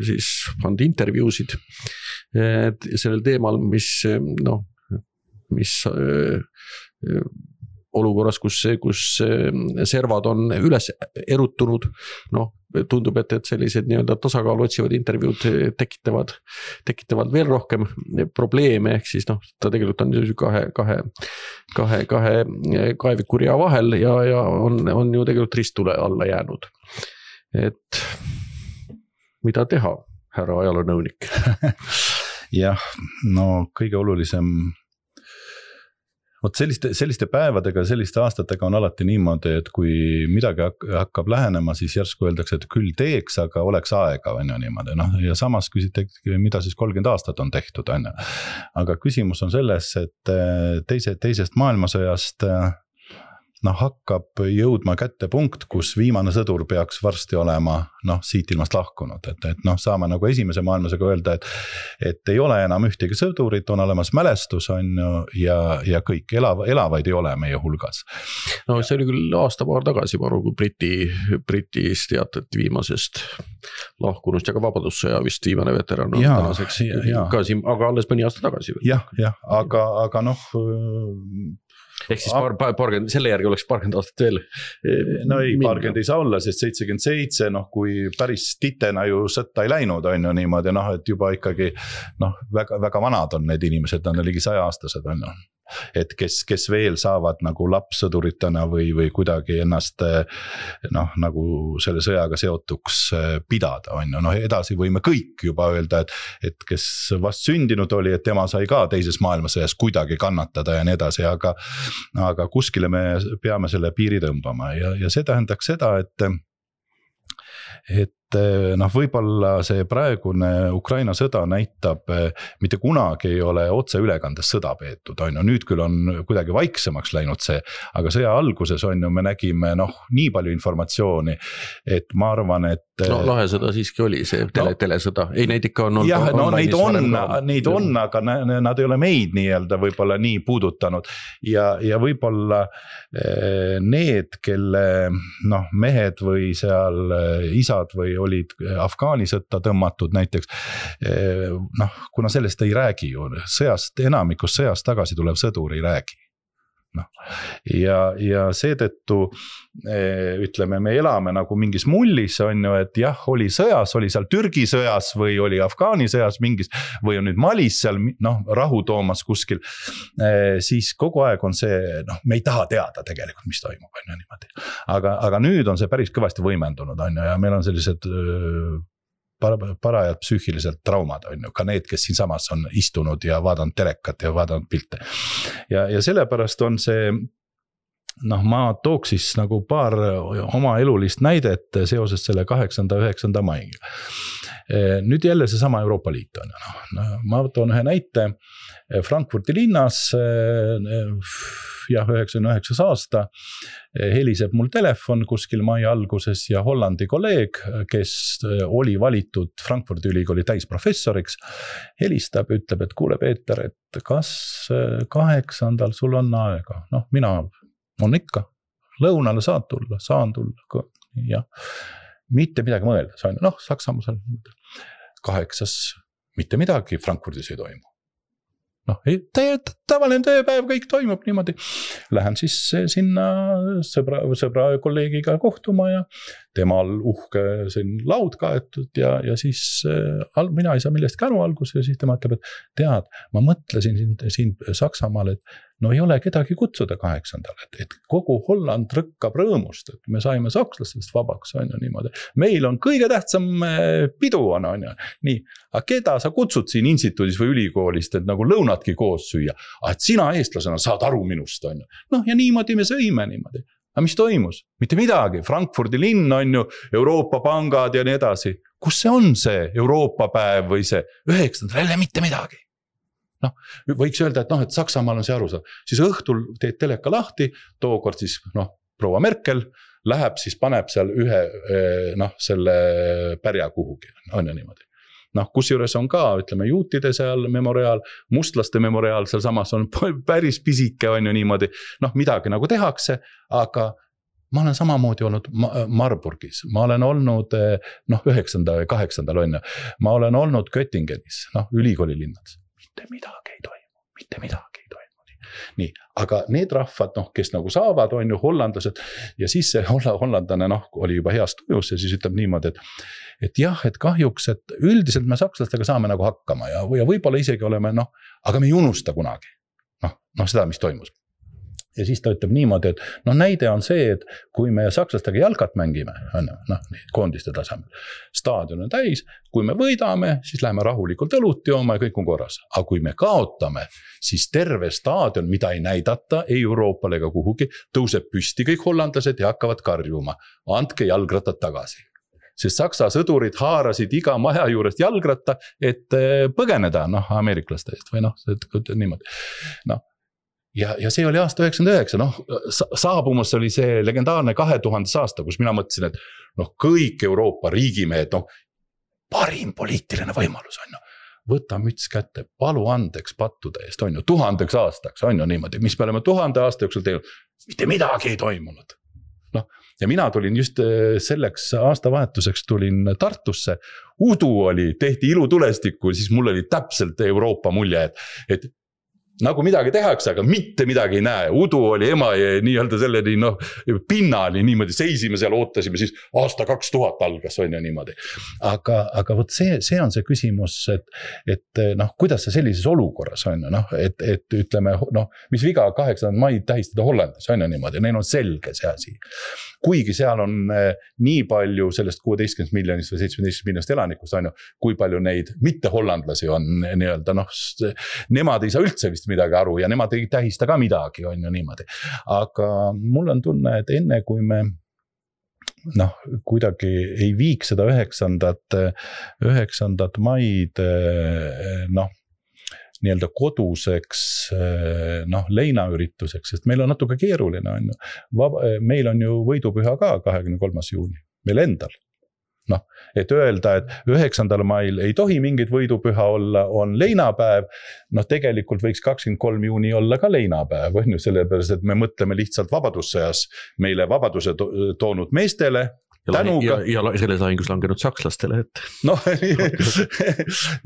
Speaker 1: siis anda intervjuusid sellel teemal, mis olukorras, kus servad on üles erutunud, tundub, et sellised nii-öelda tasakaalu otsivad intervjuud tekitavad veel rohkem probleeme, ehk siis ta tegelikult on kahe kaevikuria vahel ja on ju tegelikult ristule alla jäänud. Et mida teha, härra ajaloonõunik?
Speaker 3: Jah, kõige olulisem selliste päevadega, selliste aastatega on alati niimoodi, et kui midagi hakkab lähenema, siis järsku öeldakse, et küll teeks, aga oleks aega, on ju niimoodi. Ja samas küsite, mida siis 30 aastat on tehtud, on ju. Aga küsimus on selles, et teisest maailmasõjast hakkab jõudma kätte punkt, kus viimane sõdur peaks varsti olema siit ilmast lahkunud. Et saame nagu esimese maailmasõjaga öelda, et ei ole enam ühtegi sõdurit, on olemas mälestus on ja kõik elavaid ei ole meie hulgas.
Speaker 1: See oli küll aasta-paar tagasi, kui Britis teatati viimasest lahkunust ja ka vabadussõja vist viimane veteran on tänaseks ka siin, aga alles mõni aasta tagasi.
Speaker 3: Jah, aga
Speaker 1: ehk siis selle järgi oleks 40 aastat veel.
Speaker 3: Ei, 40 ei saa olla, sest 77, kui päris titena ju sõtta ei läinud, on ju niimoodi, et juba ikkagi väga vanad on need inimesed, nad on ligi 100-aastased, on ju. Et kes veel saavad nagu lapssõduritena või kuidagi ennast nagu selle sõjaga seotuks pidada, on ju. Edasi võime kõik juba öelda, et kes vast sündinud oli, et tema sai ka teises maailmasõjas kuidagi kannatada ja nii edasi, aga kuskile me peame selle piiri tõmbama ja see tähendaks seda, et võib-olla see praegune Ukraina sõda näitab, mitte kunagi ei ole otseülekandes sõda peetud, on ju, nüüd küll on kuidagi vaiksemaks läinud see, aga sõja alguses on ju, me nägime nii palju informatsiooni, et ma arvan, et
Speaker 1: no lahesõda siiski oli see telesõda, ei neid ikka on
Speaker 3: jah, no neid on, aga nad ei ole meid nii-öelda võib-olla nii puudutanud ja võib-olla need, kelle mehed või seal isad või olid Afgaani sõtta tõmmatud näiteks, kuna sellest ei räägi ju, enamikus sõjast tagasi tulev sõdur ei räägi. Ja seetõttu ütleme, me elame nagu mingis mullis on ju, et jah, oli sõjas, oli seal Türgi sõjas või oli Afgaani sõjas mingis või on nüüd Malis seal rahu toomas kuskil, siis kogu aeg on see, me ei taha teada tegelikult, mis toimub on ju niimoodi. Aga nüüd on see päris kõvasti võimendunud on ju ja meil on sellised parajad psüühiliselt traumad on ju, ka need, kes siin samas on istunud ja vaadanud telekat ja vaadanud pilte. Ja sellepärast on see, ma tooks siis nagu paar oma elulist näidet seoses selle 8.–9. maiga. Nüüd jälle see sama Euroopa Liit on. Ma toon ühe näite Frankfurti linnas, 99 aasta, heliseb mul telefon kuskil mai alguses ja Hollandi kolleeg, kes oli valitud Frankfurti ülikooli täisprofessoriks, helistab, ütleb, et kuule Peeter, et kas 8. sul on aega? Mina on ikka, lõunale saan tulla ja mitte midagi mõelda, Saksamaa seal 8. mitte midagi Frankfurdis ei toimu. Tavaline tööpäev, kõik toimub niimoodi. Lähen siis sinna sõbra kolleegiga kohtuma ja temal uhke laud kaetud ja siis mina ei saa millestki aru alguses ja siis tema ütleb, et tead, ma mõtlesin siin Saksamaal, et ei ole kedagi kutsuda 8. et kogu Holland rõkkab rõõmust, et me saime sakslastest vabaks, on ju niimoodi. Meil on kõige tähtsam pidu on ju. Nii, aga keda sa kutsud siin instituudis või ülikoolist, et nagu lõunatki koos süüa, et sina eestlasena saad aru minust, on ju. Ja niimoodi me sõime niimoodi. Aga mis toimus? Mitte midagi. Frankfurdi linn on ju, Euroopa pangad ja nii edasi. Kus see on see Euroopa päev või see 9. jälle mitte midagi? Võiks öelda, et Saksamaal on see aru saada. Siis õhtul teed teleka lahti, tookord siis proua Merkel läheb, siis paneb seal ühe selle pärja kuhugi. On ju niimoodi. Kus juures on ka, ütleme, juutide seal memoriaal, mustlaste memoriaal, seal samas on päris pisike, on ju niimoodi. Midagi nagu tehakse, aga ma olen samamoodi olnud Marburgis, ma olen olnud 9. või 8. on ju, ma olen olnud Göttingenis, ülikooli linnades. Mitte midagi ei toimu. Nii, aga need rahvad, kes nagu saavad, on ju hollandlased ja siis see hollandlane oli juba heas tujus ja siis ütleb niimoodi, et jah, et kahjuks, et üldiselt me sakslastega saame nagu hakkama ja võib-olla isegi oleme, aga me ei unusta kunagi seda, mis toimus. Ja siis ta ütleb niimoodi, et näide on see, et kui me sakslastega jalkat mängime, koondiste tasemel, staadion on täis, kui me võidame, siis läheme rahulikult õlut jooma ja kõik on korras. Aga kui me kaotame, siis terve staadion, mida ei näidata, ei Euroopale ega kuhugi, tõuseb püsti kõik hollandlased ja hakkavad karjuma. Andke jalgrattad tagasi. Sest saksa sõdurid haarasid iga maja juurest jalgratta, et põgeneda ameeriklaste eest või niimoodi. Ja see oli aasta 99, saabumas oli see legendaarne 2000 aasta, kus mina mõtlesin, et kõik Euroopa riigimehed, parim poliitiline võimalus on ju. Võta müts kätte, palu andeks pattude eest, on ju, 1000 aastaks, on ju niimoodi, mis me oleme 1000 aasta jooksul teinud, mitte midagi ei toimunud. Ja mina tulin just selleks aastavahetuseks tulin Tartusse, udu oli, tehti ilutulestikku, siis mul oli täpselt Euroopa mulje, et nagu midagi tehakse, aga mitte midagi ei näe. Udu oli ema ja nii-öelda selleni pinnani niimoodi seisime seal, ootasime, siis aasta 2000 algas on ju niimoodi. Aga võt see on see küsimus, et kuidas see sellises olukorras on ju, et ütleme, mis viga 8. maid tähistada Hollandis on ju niimoodi, neil on selge see asi. Kuigi seal on nii palju sellest 16 miljonist või 17 miljonist elanikust on ju, kui palju neid mitte hollandlasi on nii-öelda, nemad ei saa üldse vist midagi aru ja nemad ei tähista ka midagi, on ju niimoodi. Aga mul on tunne, et enne kui me kuidagi ei viiks seda 9. maid nii-öelda koduseks leinaürituseks, sest meil on natuke keeruline on ju. Meil on ju võidupüha ka 23. juuni, meil endal. Noh, et öelda, et 9. mail ei tohi mingit võidupüha olla, on leinapäev, noh tegelikult võiks 23. juuni olla ka leinapäev, on ju, sellepärast, et me mõtleme lihtsalt vabadussõjas meile vabaduse toonud meestele, tänuga.
Speaker 1: Ja selles lahingus langenud sakslastele, et.
Speaker 3: Noh,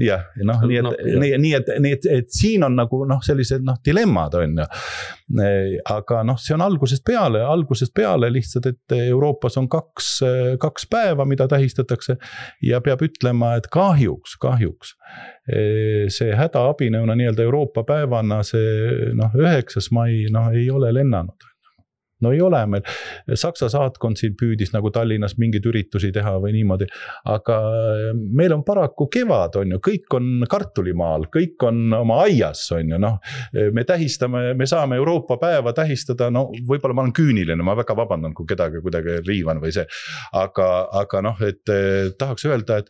Speaker 3: jah, noh, nii et siin on nagu sellised dilemmad on ju. Aga see on algusest peale lihtsalt, et Euroopas on kaks päeva, mida tähistatakse ja peab ütlema, et kahjuks see hädaabinõuna nii-öelda Euroopa päevana see 9. mai ei ole lennanud. No ei ole meil, Saksa saatkond siin püüdis nagu Tallinnas mingeid üritusi teha või niimoodi, aga meil on paraku kevad on ju, kõik on kartulimaal, kõik on oma aias on ju, me saame Euroopa päeva tähistada, võib-olla ma olen küüniline, ma väga vabandan, kui kedagi kuidagi riivan või see, aga et tahaks öelda, et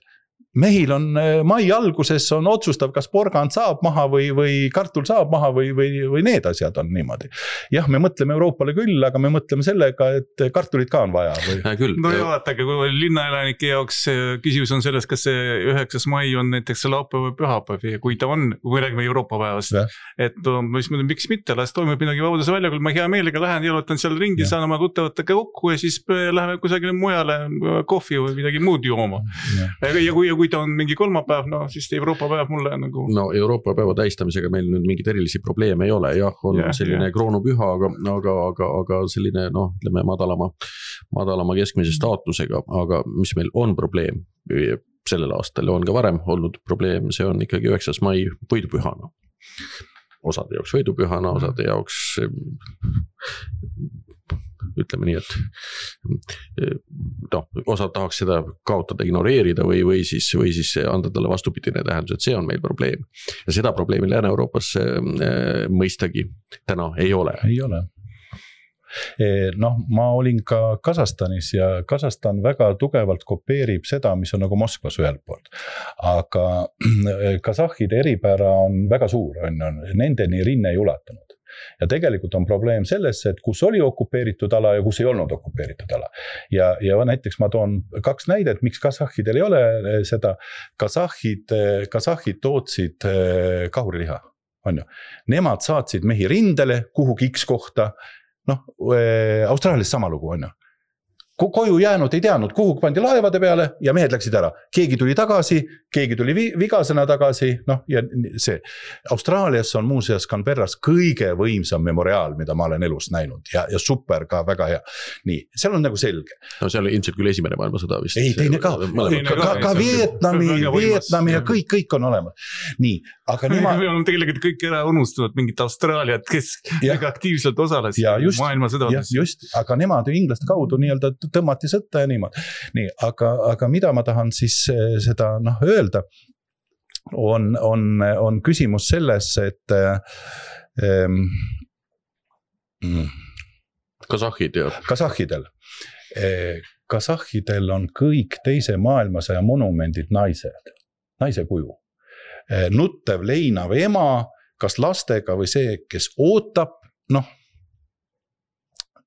Speaker 3: mehil on mai alguses on otsustav, kas porgand saab maha või kartul saab maha või need asjad on niimoodi. Jah, me mõtleme Euroopale küll, aga me mõtleme sellega, et kartulit ka on vaja.
Speaker 2: No ja vaatake, kui linnaelanike jaoks küsimus on selles, kas see 9. mai on näiteks laupäev või pühapäev ja kui ta on, kui räägime Euroopa päevast, et miks mitte, las toimub midagi vabaduse väljakul, ma hea meelega lähen, jalutan seal ringi, saan oma tuttavatega kokku ja siis läheme kusagile mujale kohvi või midagi muud jooma. Ja kui ta on mingi kolmapäev, siis Euroopa päev mulle nagu.
Speaker 1: No Euroopa päeva tähistamisega meil nüüd mingid erilisi probleeme ei ole, on selline kroonupüha, aga selline, ütleme madalama keskmise staatusega, aga mis meil on probleem sellel aastal ja on ka varem olnud probleem, see on ikkagi 9. mai võidupühana. Osade jaoks võidupühana, osade jaoks ütleme nii, et osad tahaks seda kaotada, ignoreerida või siis anda talle vastupidine tähendus, et see on meil probleem. Ja seda probleemi Lääne-Euroopas mõistagi täna ei ole.
Speaker 3: Ei ole. Ma olin ka Kasahstanis ja Kasahstan väga tugevalt kopeerib seda, mis on nagu Moskvas ühelt poolt. Aga kasahhide eripära on väga suur, nendeni rinne ei ulatunud. Ja tegelikult on probleem selles, et kus oli okupeeritud ala ja kus ei olnud okupeeritud ala. Ja näiteks ma toon 2 näidet, miks kasahhidel ei ole seda. Kasahhid tootsid kahuriliha. On ju. Nemad saatsid mehi rindele kuhugi X kohta. Austraalias sama lugu on ju. Koju jäänud ei teadnud, kuhu pandi laevade peale ja mehed läksid ära. Keegi tuli tagasi, keegi tuli vigasena tagasi, ja see. Austraalias on muuseas Canberras kõige võimsam memoriaal, mida ma olen elus näinud ja super ka väga hea. Nii, seal on nagu selge.
Speaker 1: No seal ilmselt küll esimene maailmasõda vist.
Speaker 3: Ei, teine ka. Ka Vietnami ja kõik on olemas. Nii, aga
Speaker 2: me oleme tegelikult kõik ära unustanud mingit Austraaliat, kes väga aktiivselt osales maailmasõdades.
Speaker 3: Just, aga nemad inglaste kaudu nii-öelda tõmmati sõtta ja niimoodi. Nii, aga mida ma tahan siis seda öelda, on küsimus selles, et Kasahhidel on kõik teise maailmasõja monumendid naise kuju. Nuttev leinav ema, kas lastega või see, kes ootab,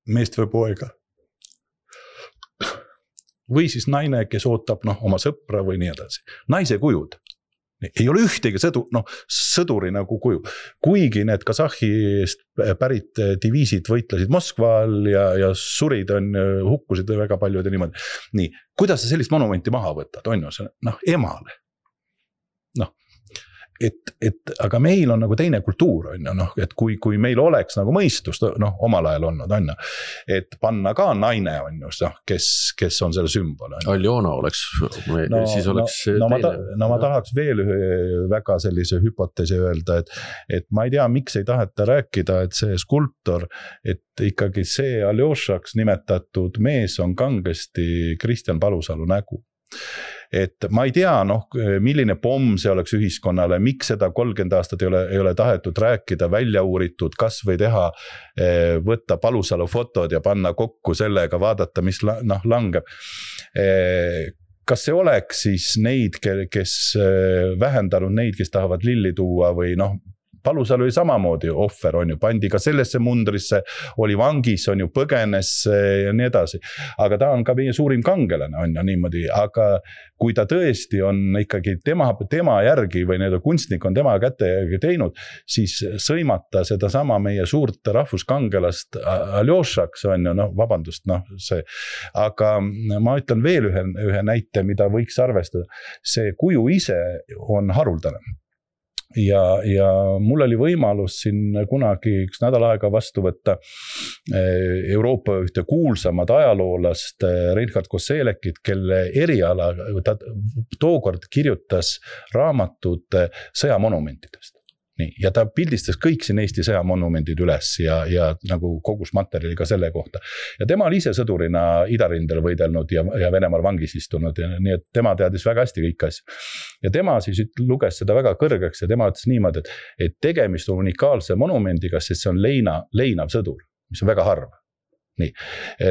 Speaker 3: meest või poega. Või siis naine, kes ootab oma sõpra või nii edasi. Naise kujud. Ei ole ühtegi sõduri nagu kuju. Kuigi need Kasahhist pärit diviisid võitlesid Moskval ja surid hukkusid väga paljud ja niimoodi. Nii, kuidas sa sellist monumenti maha võtad? On ju see, emale. Aga meil on nagu teine kultuur, et kui meil oleks nagu mõistust, omal ajal olnud, et panna ka naine, kes on selle sümbol.
Speaker 1: Aljona oleks, siis oleks
Speaker 3: teine. Ma tahaks veel ühe väga sellise hüpoteesi öelda, et ma ei tea, miks ei taheta rääkida, et see skulptor, et ikkagi see Aljošaks nimetatud mees on kangesti Kristjan Palusalu nägu. Et ma ei tea, milline pomm see oleks ühiskonnale, miks seda 30 aastat ei ole tahetud rääkida, välja uuritud, kas või teha, võtta Palusalu fotod ja panna kokku sellega, vaadata, mis langeb. Kas see oleks siis neid, kes vähendanud neid, kes tahavad lilli tuua või Palusalu oli samamoodi ohver, on ju, pandi ka sellesse mundrisse, oli vangis, on ju, põgenes ja nii edasi. Aga ta on ka meie suurim kangelane, on ju niimoodi, aga kui ta tõesti on ikkagi tema järgi või need kunstnik on tema kätte teinud, siis sõimata seda sama meie suurt rahvuskangelast Aljošaks, on ju, noh, vabandust, noh, see, aga ma ütlen veel ühe näite, mida võiks arvestada. See kuju ise on haruldane. Ja mul oli võimalus siin kunagi üks nädal aega vastu võtta Euroopa ühte kuulsamad ajaloolast Reinhard Koselekit, kelle eriala ta tookord kirjutas raamatud sõjamonumentidest. Nii, ja ta pildistas kõik siin Eesti sõjamonumendid üles ja nagu kogus materjali ka selle kohta. Ja tema oli ise sõdurina idarindel võidelnud ja Venemaal vangis istunud, nii et tema teadis väga hästi kõik asja. Ja tema siis luges seda väga kõrgeks ja tema ütles niimoodi, et tegemist on unikaalse monumendiga, sest see on leinav sõdur, mis on väga harv. Nii,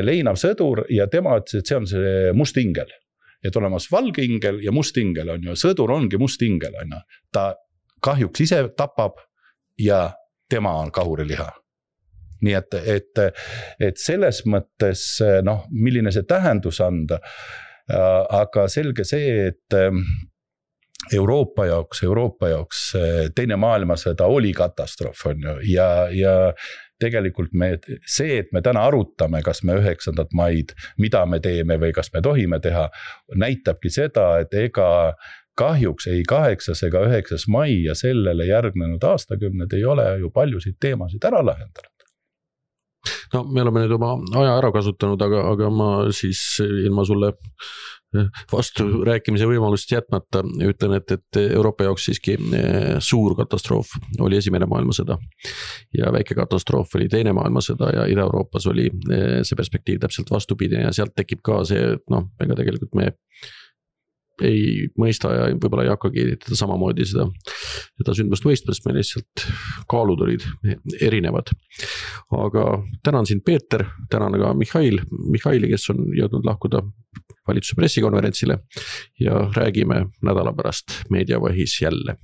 Speaker 3: leinav sõdur ja tema ütles, et see on see must ingel. Et olemas valge ingel ja must ingel on ju, sõdur ongi must ingel, on ju. Ta kahjuks ise tapab ja tema on kahuriliha. Nii et selles mõttes, noh, milline see tähendus anda, aga selge see, et Euroopa jaoks teine maailmasõda oli katastroof, on ju, ja tegelikult see, et me täna arutame, kas me 9. maid, mida me teeme või kas me tohime teha, näitabki seda, et ega kahjuks ei 8. ega 9. mai ja sellele järgnenud aastakümned ei ole ju paljusid teemasid ära lahendanud.
Speaker 1: No me oleme nüüd oma aja ära kasutanud, aga ma siis ilma sulle vastu rääkimise võimalust jätmata ütlen, et Euroopa jaoks siiski suur katastroof oli Esimene maailmasõda ja väike katastroof oli Teine maailmasõda ja Ida-Euroopas oli see perspektiiv täpselt vastupidi ja sealt tekib ka see, noh, ega tegelikult me ei mõista ja võib-olla ei hakkagi teda samamoodi seda sündmust mõistma, sest meil lihtsalt kaalud olid erinevad. Aga tänan sind, Peeter, tänan ka Mihhaili, kes on jõudnud lahkuda valitsuse pressikonverentsile ja räägime nädala pärast Meediavõhis jälle.